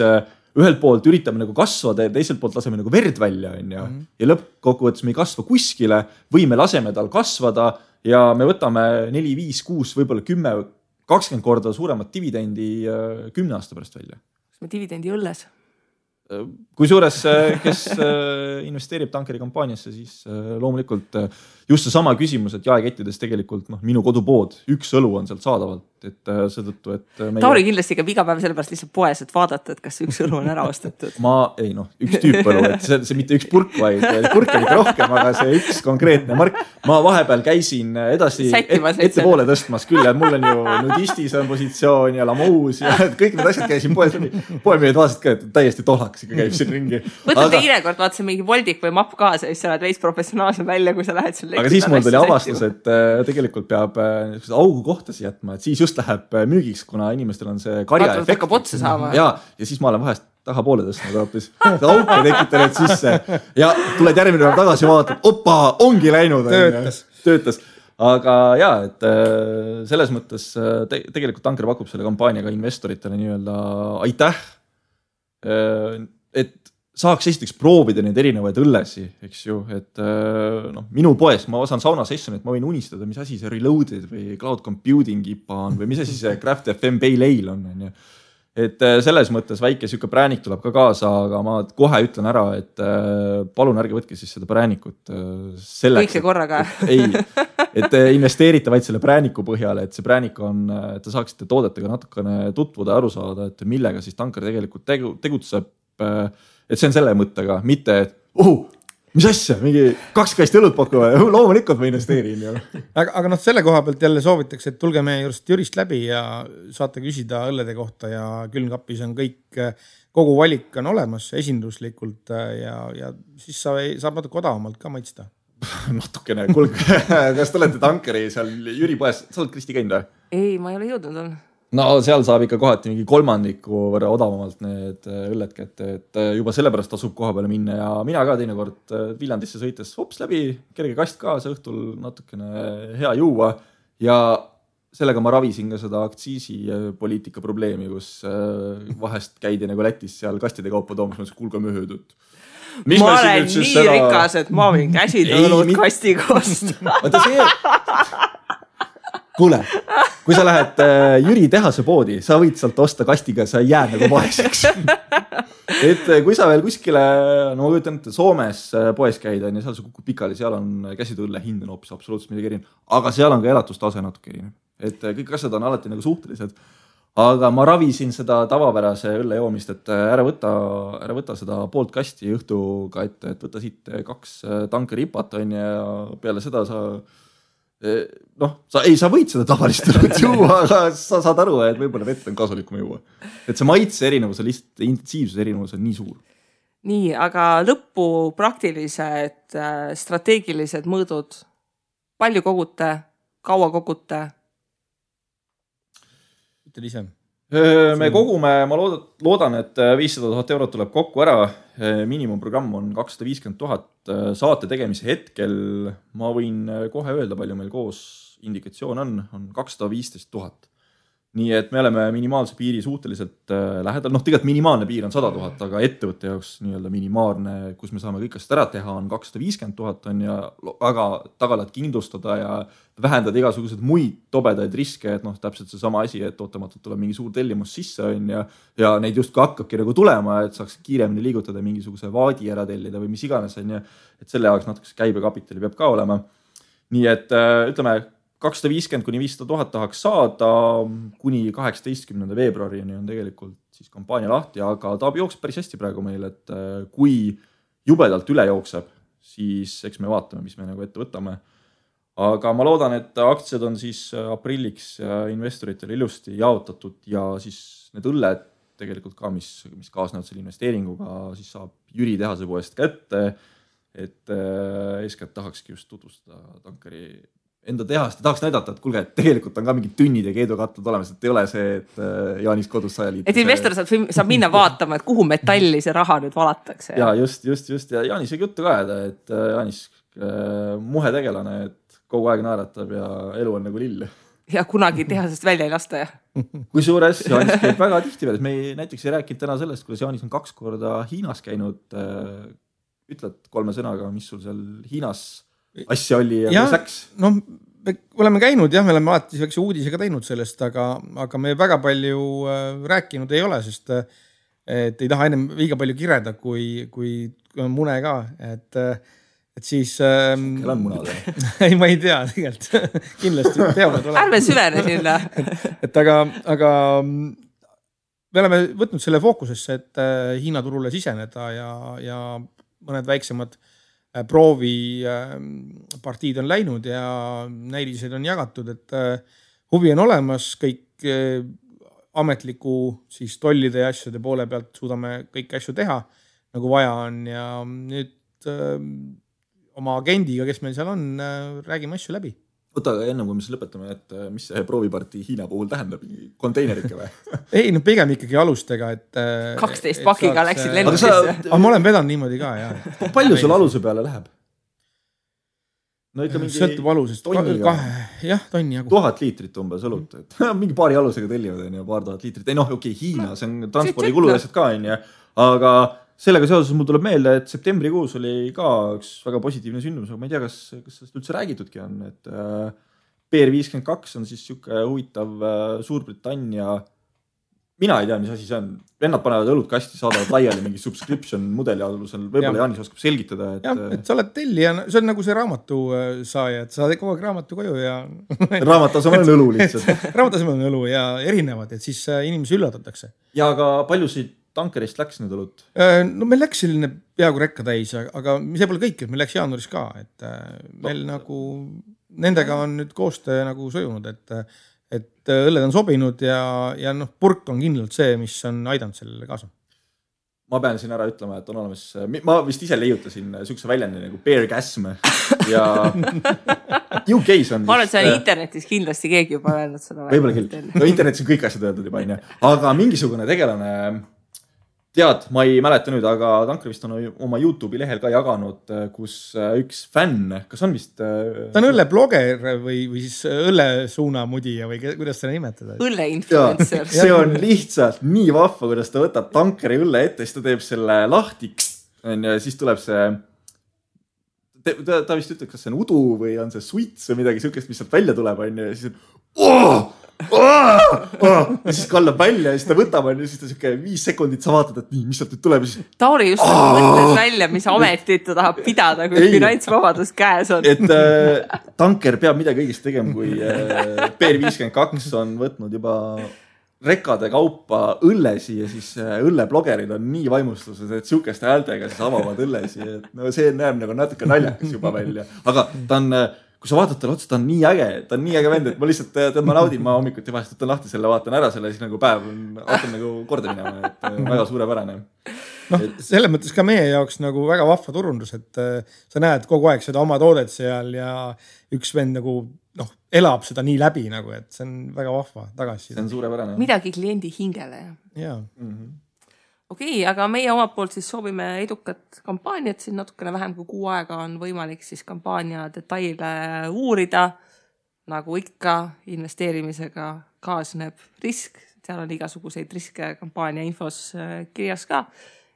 ühelt poolt üritame nagu kasvada ja teiselt poolt laseme nagu verd välja. Ja lõppkokkuvõttes me ei kasva kuskile või me laseme tal kasvada ja me võtame 4, 5, 6, võib-olla 10, 20 korda suuremat dividendi 10 aasta pärast välja. Kas me dividendi õlles? Kui suures, kes investeerib tankeri kampaaniasse, siis loomulikult just see sama küsimus, et jaekettides tegelikult minu kodupood, üks õlu on sealt saadavalt, et seetõttu, et Tauri kindlasti käib iga päev sellepärast lihtsalt poes, et vaadata, et kas üks õlu on ära ostetud. Üks tüüp õlu, et see mitte üks purk, vaid purk on ikka rohkem, aga see üks konkreetne mark. Ma vahepeal käisin edasi ettepoole tõstmas küll, et mul on ju nudistis on positsioon ja lamuus ja kõik need asjad käisin poes läbi. Poemüüjad vaatasid ka, et täiesti tohlaks ikka käib siin ringi. Võtad teine kord, vaatasin mingi voldik või mapp kaasa ja siis sa oled veits professionaalsem välja, kui sa lähed seal. Aga siis mul tuli avastus, et tegelikult peab augu kohtasi jätma, et siis just läheb müügiks, kuna inimestel on see karja efekt. Hakkab otsa saama. Ja siis ma olen vahest tahapoole tõstnud hoopis. Auke tekitanud sisse ja tuled järgmine päev tagasi vaatad, opa, ongi läinud. Töötas. Aga jaa, et selles mõttes tegelikult tanker pakub selle kampaaniaga investoritele nii-öelda aitäh, et saaks esiteks proovida neid erinevaid õllesi, eks ju, et minu poes, ma saan sauna sessionit, ma võin unistada, mis asi see Reloaded või Cloud Computing IPA on või mis asi see Craft FM Pale Ale on. Et selles mõttes väike siuke präänik tuleb ka kaasa, aga ma kohe ütlen ära, et palun ärge võtke siis seda präänikut selleks. Kõik see korraga. Et investeerite vaid selle prääniku põhjale, et see präänik on, et te saaksite toodetega natukene tutvuda ja aru saada, et millega siis tanker tegelikult tegutseb. Et see on selle mõttega, mitte, et mis asja, mingi 2 kasti õlut pakuva, loomulikult ma investeerin. Aga selle koha pealt jälle soovitaks, et tulge meie Jürist läbi ja saate küsida õllede kohta ja külmkapis on kõik, kogu valik on olemas esinduslikult ja siis saab natuke odavamalt ka maitsta. Natukene, kuulge, kas te olete tankeri seal Jüri poes, sa oled Kristi käinud või? Ei, ma ei ole jõudnud on. No seal saab ikka kohati mingi 3 võrra odavamalt need õlled kätte, et juba sellepärast tasub koha peale minna ja mina ka teinekord Viljandisse sõites hops läbi, kerge kast kaasa õhtul natukene hea juua ja sellega ma ravisin ka seda aktsiisipoliitika probleemi, kus vahest käidi nagu Lätis seal kastide kaupa toomas, ma kuulge möödud. Ma olen nii rikas, et ma võin käsitõõlud kasti kosta. Kuule, kui sa lähed Jüri tehase poodi, sa võid sealt osta kastiga, sa ei jää nagu vaeseks. Et kui sa veel kuskile, no ma kujutan, et Soomes poes käida, ja seal sa kukkud pikali, seal on käsitõõlle hind on hoopis absoluutselt midagi erinev. Aga seal on ka elatustase natuke erinev. Et kõik asjad on alati nagu suhtelised. Aga ma ravisin seda tavapärase õlle joomist, et ära võta seda poolt kasti õhtuga, et võta siit 2 tankeripat on ja peale seda sa võid seda tavalist õlut juua, aga sa saad aru, et võib-olla vett on kasulikum juua. Et see maitse erinevus on lihtsalt intensiivsuse erinevus on nii suur. Nii, aga lõppu praktilised strateegilised mõõdud. Palju kogute, kaua kogute? Ise. Me kogume, ma loodan, et 500 000 eurot tuleb kokku ära. Miinimumprogramm on 250 000 saate tegemise hetkel. Ma võin kohe öelda, palju meil koos indikatsioon on 215 000. Nii et me oleme minimaalse piiri suhteliselt lähedal. Tegelikult minimaalne piir on 100 000, aga ettevõtte jaoks nii-öelda minimaalne, kus me saame kõik asjad ära teha, on 250 000 on ja väga tagalad kindlustada ja vähendada igasugused muid tobedaid riske, et täpselt see sama asi, et ootamatult tuleb mingi suur tellimus sisse on ja neid justkui hakkabki nagu tulema, et saaks kiiremini liigutada mingisuguse vaadi ära tellida või mis iganes on ja et selle jaoks natuke käibekapitali peab ka olema. Nii et ütleme, 250 kuni 500 000 tahaks saada kuni 18. veebruarini on tegelikult siis kampaania lahti, aga ta jookseb päris hästi praegu meil, et kui jubedalt üle jookseb, siis eks me vaatame, mis me nagu ette võtame. Aga ma loodan, et aktsiad on siis aprilliks investoritele ilusti jaotatud ja siis need õlled tegelikult ka, mis kaasnevad selle investeeringuga, siis saab Jüri tehase poest kätte, et eeskätt tahakski just tutvustada tankeri enda tehast ja tahaks näidata, et kuulge, et tegelikult on ka mingid tünnid ja keedukatlad olemas, et ei ole see, et Jaanis kodus 100 liitri. Et investor saab minna vaatama, et kuhu metalli see raha nüüd valatakse. Ja just. Ja Jaanis ei juttu ka, et Jaanis muhe tegelane, et kogu aeg naeratab ja elu on nagu lill. Ja kunagi tehasest välja ei lasta. Kui suures Jaanis käib väga tihti veel. Me näiteks ei rääkinud täna sellest, kuidas Jaanis on 2 korda Hiinas käinud. Ütled 3 sõnaga, mis sul seal Hiinas asja oli ja läks? No, me oleme käinud, me oleme alati väikse uudisega teinud sellest, aga me väga palju rääkinud ei ole, sest et ei taha ennem liiga palju kireda, kui mune ka, et siis Kell on munad. Ei, ma ei tea tegelikult. Kindlasti peavad olema. Ärme süvene sinna. Et aga me oleme võtnud selle fookusesse, et Hiina turule siseneda ja mõned väiksemad proovi partiid on läinud ja näilised on jagatud, et huvi on olemas, kõik ametliku siis tollide ja asjade poole pealt suudame kõik asju teha, nagu vaja on ja nüüd oma agendiga, kes meil seal on, räägime asju läbi. Võta enne, kui me siis lõpetame, et mis see proovipartii Hiina puhul tähendab, konteinerike või? Ei, pigem ikkagi alustega, et 12 pakiga läksid lennukisse. Aga ma olen vedanud niimoodi ka, jah. Palju sul aluse peale läheb? No ikka mingi sõltub alusest. Tonniga. Jah, tonni jagu. 1000 liitrit umbes õlut. Mingi paari alusega tellivad, paar tuhat liitrit. Ei okei, Hiina, see on transpordikulu asjad ka, aga sellega seoses mul tuleb meelde, et septembrikuus oli ka üks väga positiivne sündmus, aga ma ei tea, kas sellest üldse räägitudki on, et PR52 on siis siuke huvitav Suurbritannia, mina ei tea, mis asi see on, vennad panevad õlut kasti, saadavad laiali mingi subscription mudeli alusel, võib-olla Jaanis oskab selgitada. Et sa oled tellija, see on nagu see raamatu saaja, et sa saad kogu aeg raamatu koju ja raamat asemel on õlu lihtsalt. Raamat asemel on õlu ja erinevad, et siis inimesi üllatatakse. Ja aga paljusid tankerist läks nüüd õlut? No meil läks selline peaaegu rekka täis, aga see pole kõik, et meil läks jaanuaris ka, et meil nagu nendega on nüüd koostöö nagu sujunud, et õlled on sobinud ja purk on kindlalt see, mis on aidanud sellele kaasa. Ma pean siin ära ütlema, et on olemas, ma vist ise leiutasin sükse väljandi nagu beargasm ja UK's on ma olen seal internetis kindlasti keegi juba öelnud seda. Võib-olla küll. No internetis on kõik asjad öeldud juba, aga mingisugune tegelane tead, ma ei mäleta nüüd, aga Tanker vist on oma YouTube'i lehel ka jaganud, kus üks fänn, kas on vist... Ta on õllebloger või siis õllesuunamudija või kuidas seda nimetada? Õlleinfluencer. See on lihtsalt nii vahva, kuidas ta võtab Tankeri õlle ette, siis ta teeb selle lahti ja siis tuleb see... Ta vist ütleb, kas see on udu või on see suits või midagi sihukest, mis sealt välja tuleb ja siis ja siis kallab välja ja siis ta võtab ja siis ta siuke 5 sekundit sa vaatad, et nii, mis sealt nüüd tuleb. Tauri just mõtles välja, mis ametit ta tahab pidada, kui finantsvabadus käes on. Et Tanker peab midagi õigesti tegema, kui PR52 on võtnud juba rekade kaupa õllesi ja siis õlleblogerid on nii vaimustused, et sihukeste häältega siis avavad õllesi. Et no see näeb nagu natuke naljakas juba välja, aga ta on... Kui sa vaatad talle otsa, ta on nii äge vend, et ma lihtsalt ma naudin, ma hommikuti vahest võtan lahti selle, vaatan ära selle, siis nagu päev hakkab nagu korda minema, et väga suurepärane. Noh, selles mõttes ka meie jaoks nagu väga vahva turundus, et sa näed kogu aeg seda oma toodet seal ja üks vend nagu elab seda nii läbi nagu, et see on väga vahva tagasi. See on suurepärane. Midagi kliendi hingele. Jaa. Okei, aga meie omalt poolt siis soovime edukat kampaaniat, siin natukene vähem kui 6 aega on võimalik siis kampaania detaile uurida. Nagu ikka investeerimisega kaasneb risk, seal on igasuguseid riske kampaania infos kirjas ka.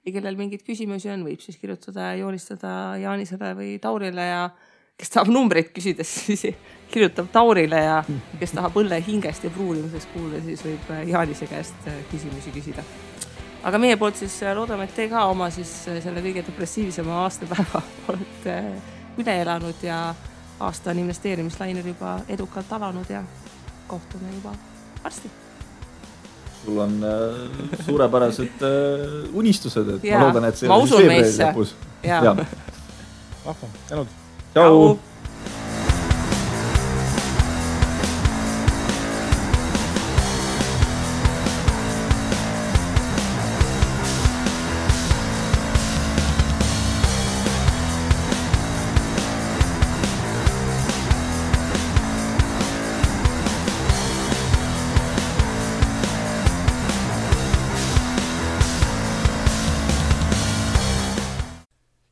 Ja kellel mingid küsimusi on, võib siis kirjutada ja joonistada Jaanisele või Taurile ja kes tahab numbreid küsides, siis kirjutab Taurile ja kes tahab õlle hingest ja pruunimisest kuulda, siis võib Jaanise käest küsimusi küsida. Aga meie poolt siis loodame, et te ka oma siis selle kõige depressiivisema aastapäeva olete üle elanud ja aasta on investeerimislainel juba edukalt alanud ja kohtume juba varsti. Sul on suurepärased unistused, et ja, ma loodan, et see on siis veebruari lõpus. Vahva, tänud. Tšau!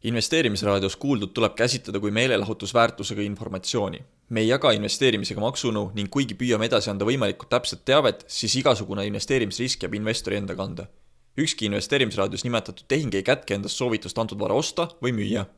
Investeerimisraadios kuuldud tuleb käsitleda kui meelelahutusväärtusega informatsiooni. Me ei jaga investeerimisega maksunu ning kuigi püüame edasi anda võimalikult täpset teavet, siis igasugune investeerimisrisk jääb investori enda kanda. Ükski investeerimisraadios nimetatud tehing ei kätke endast soovitust antud vara osta või müüa.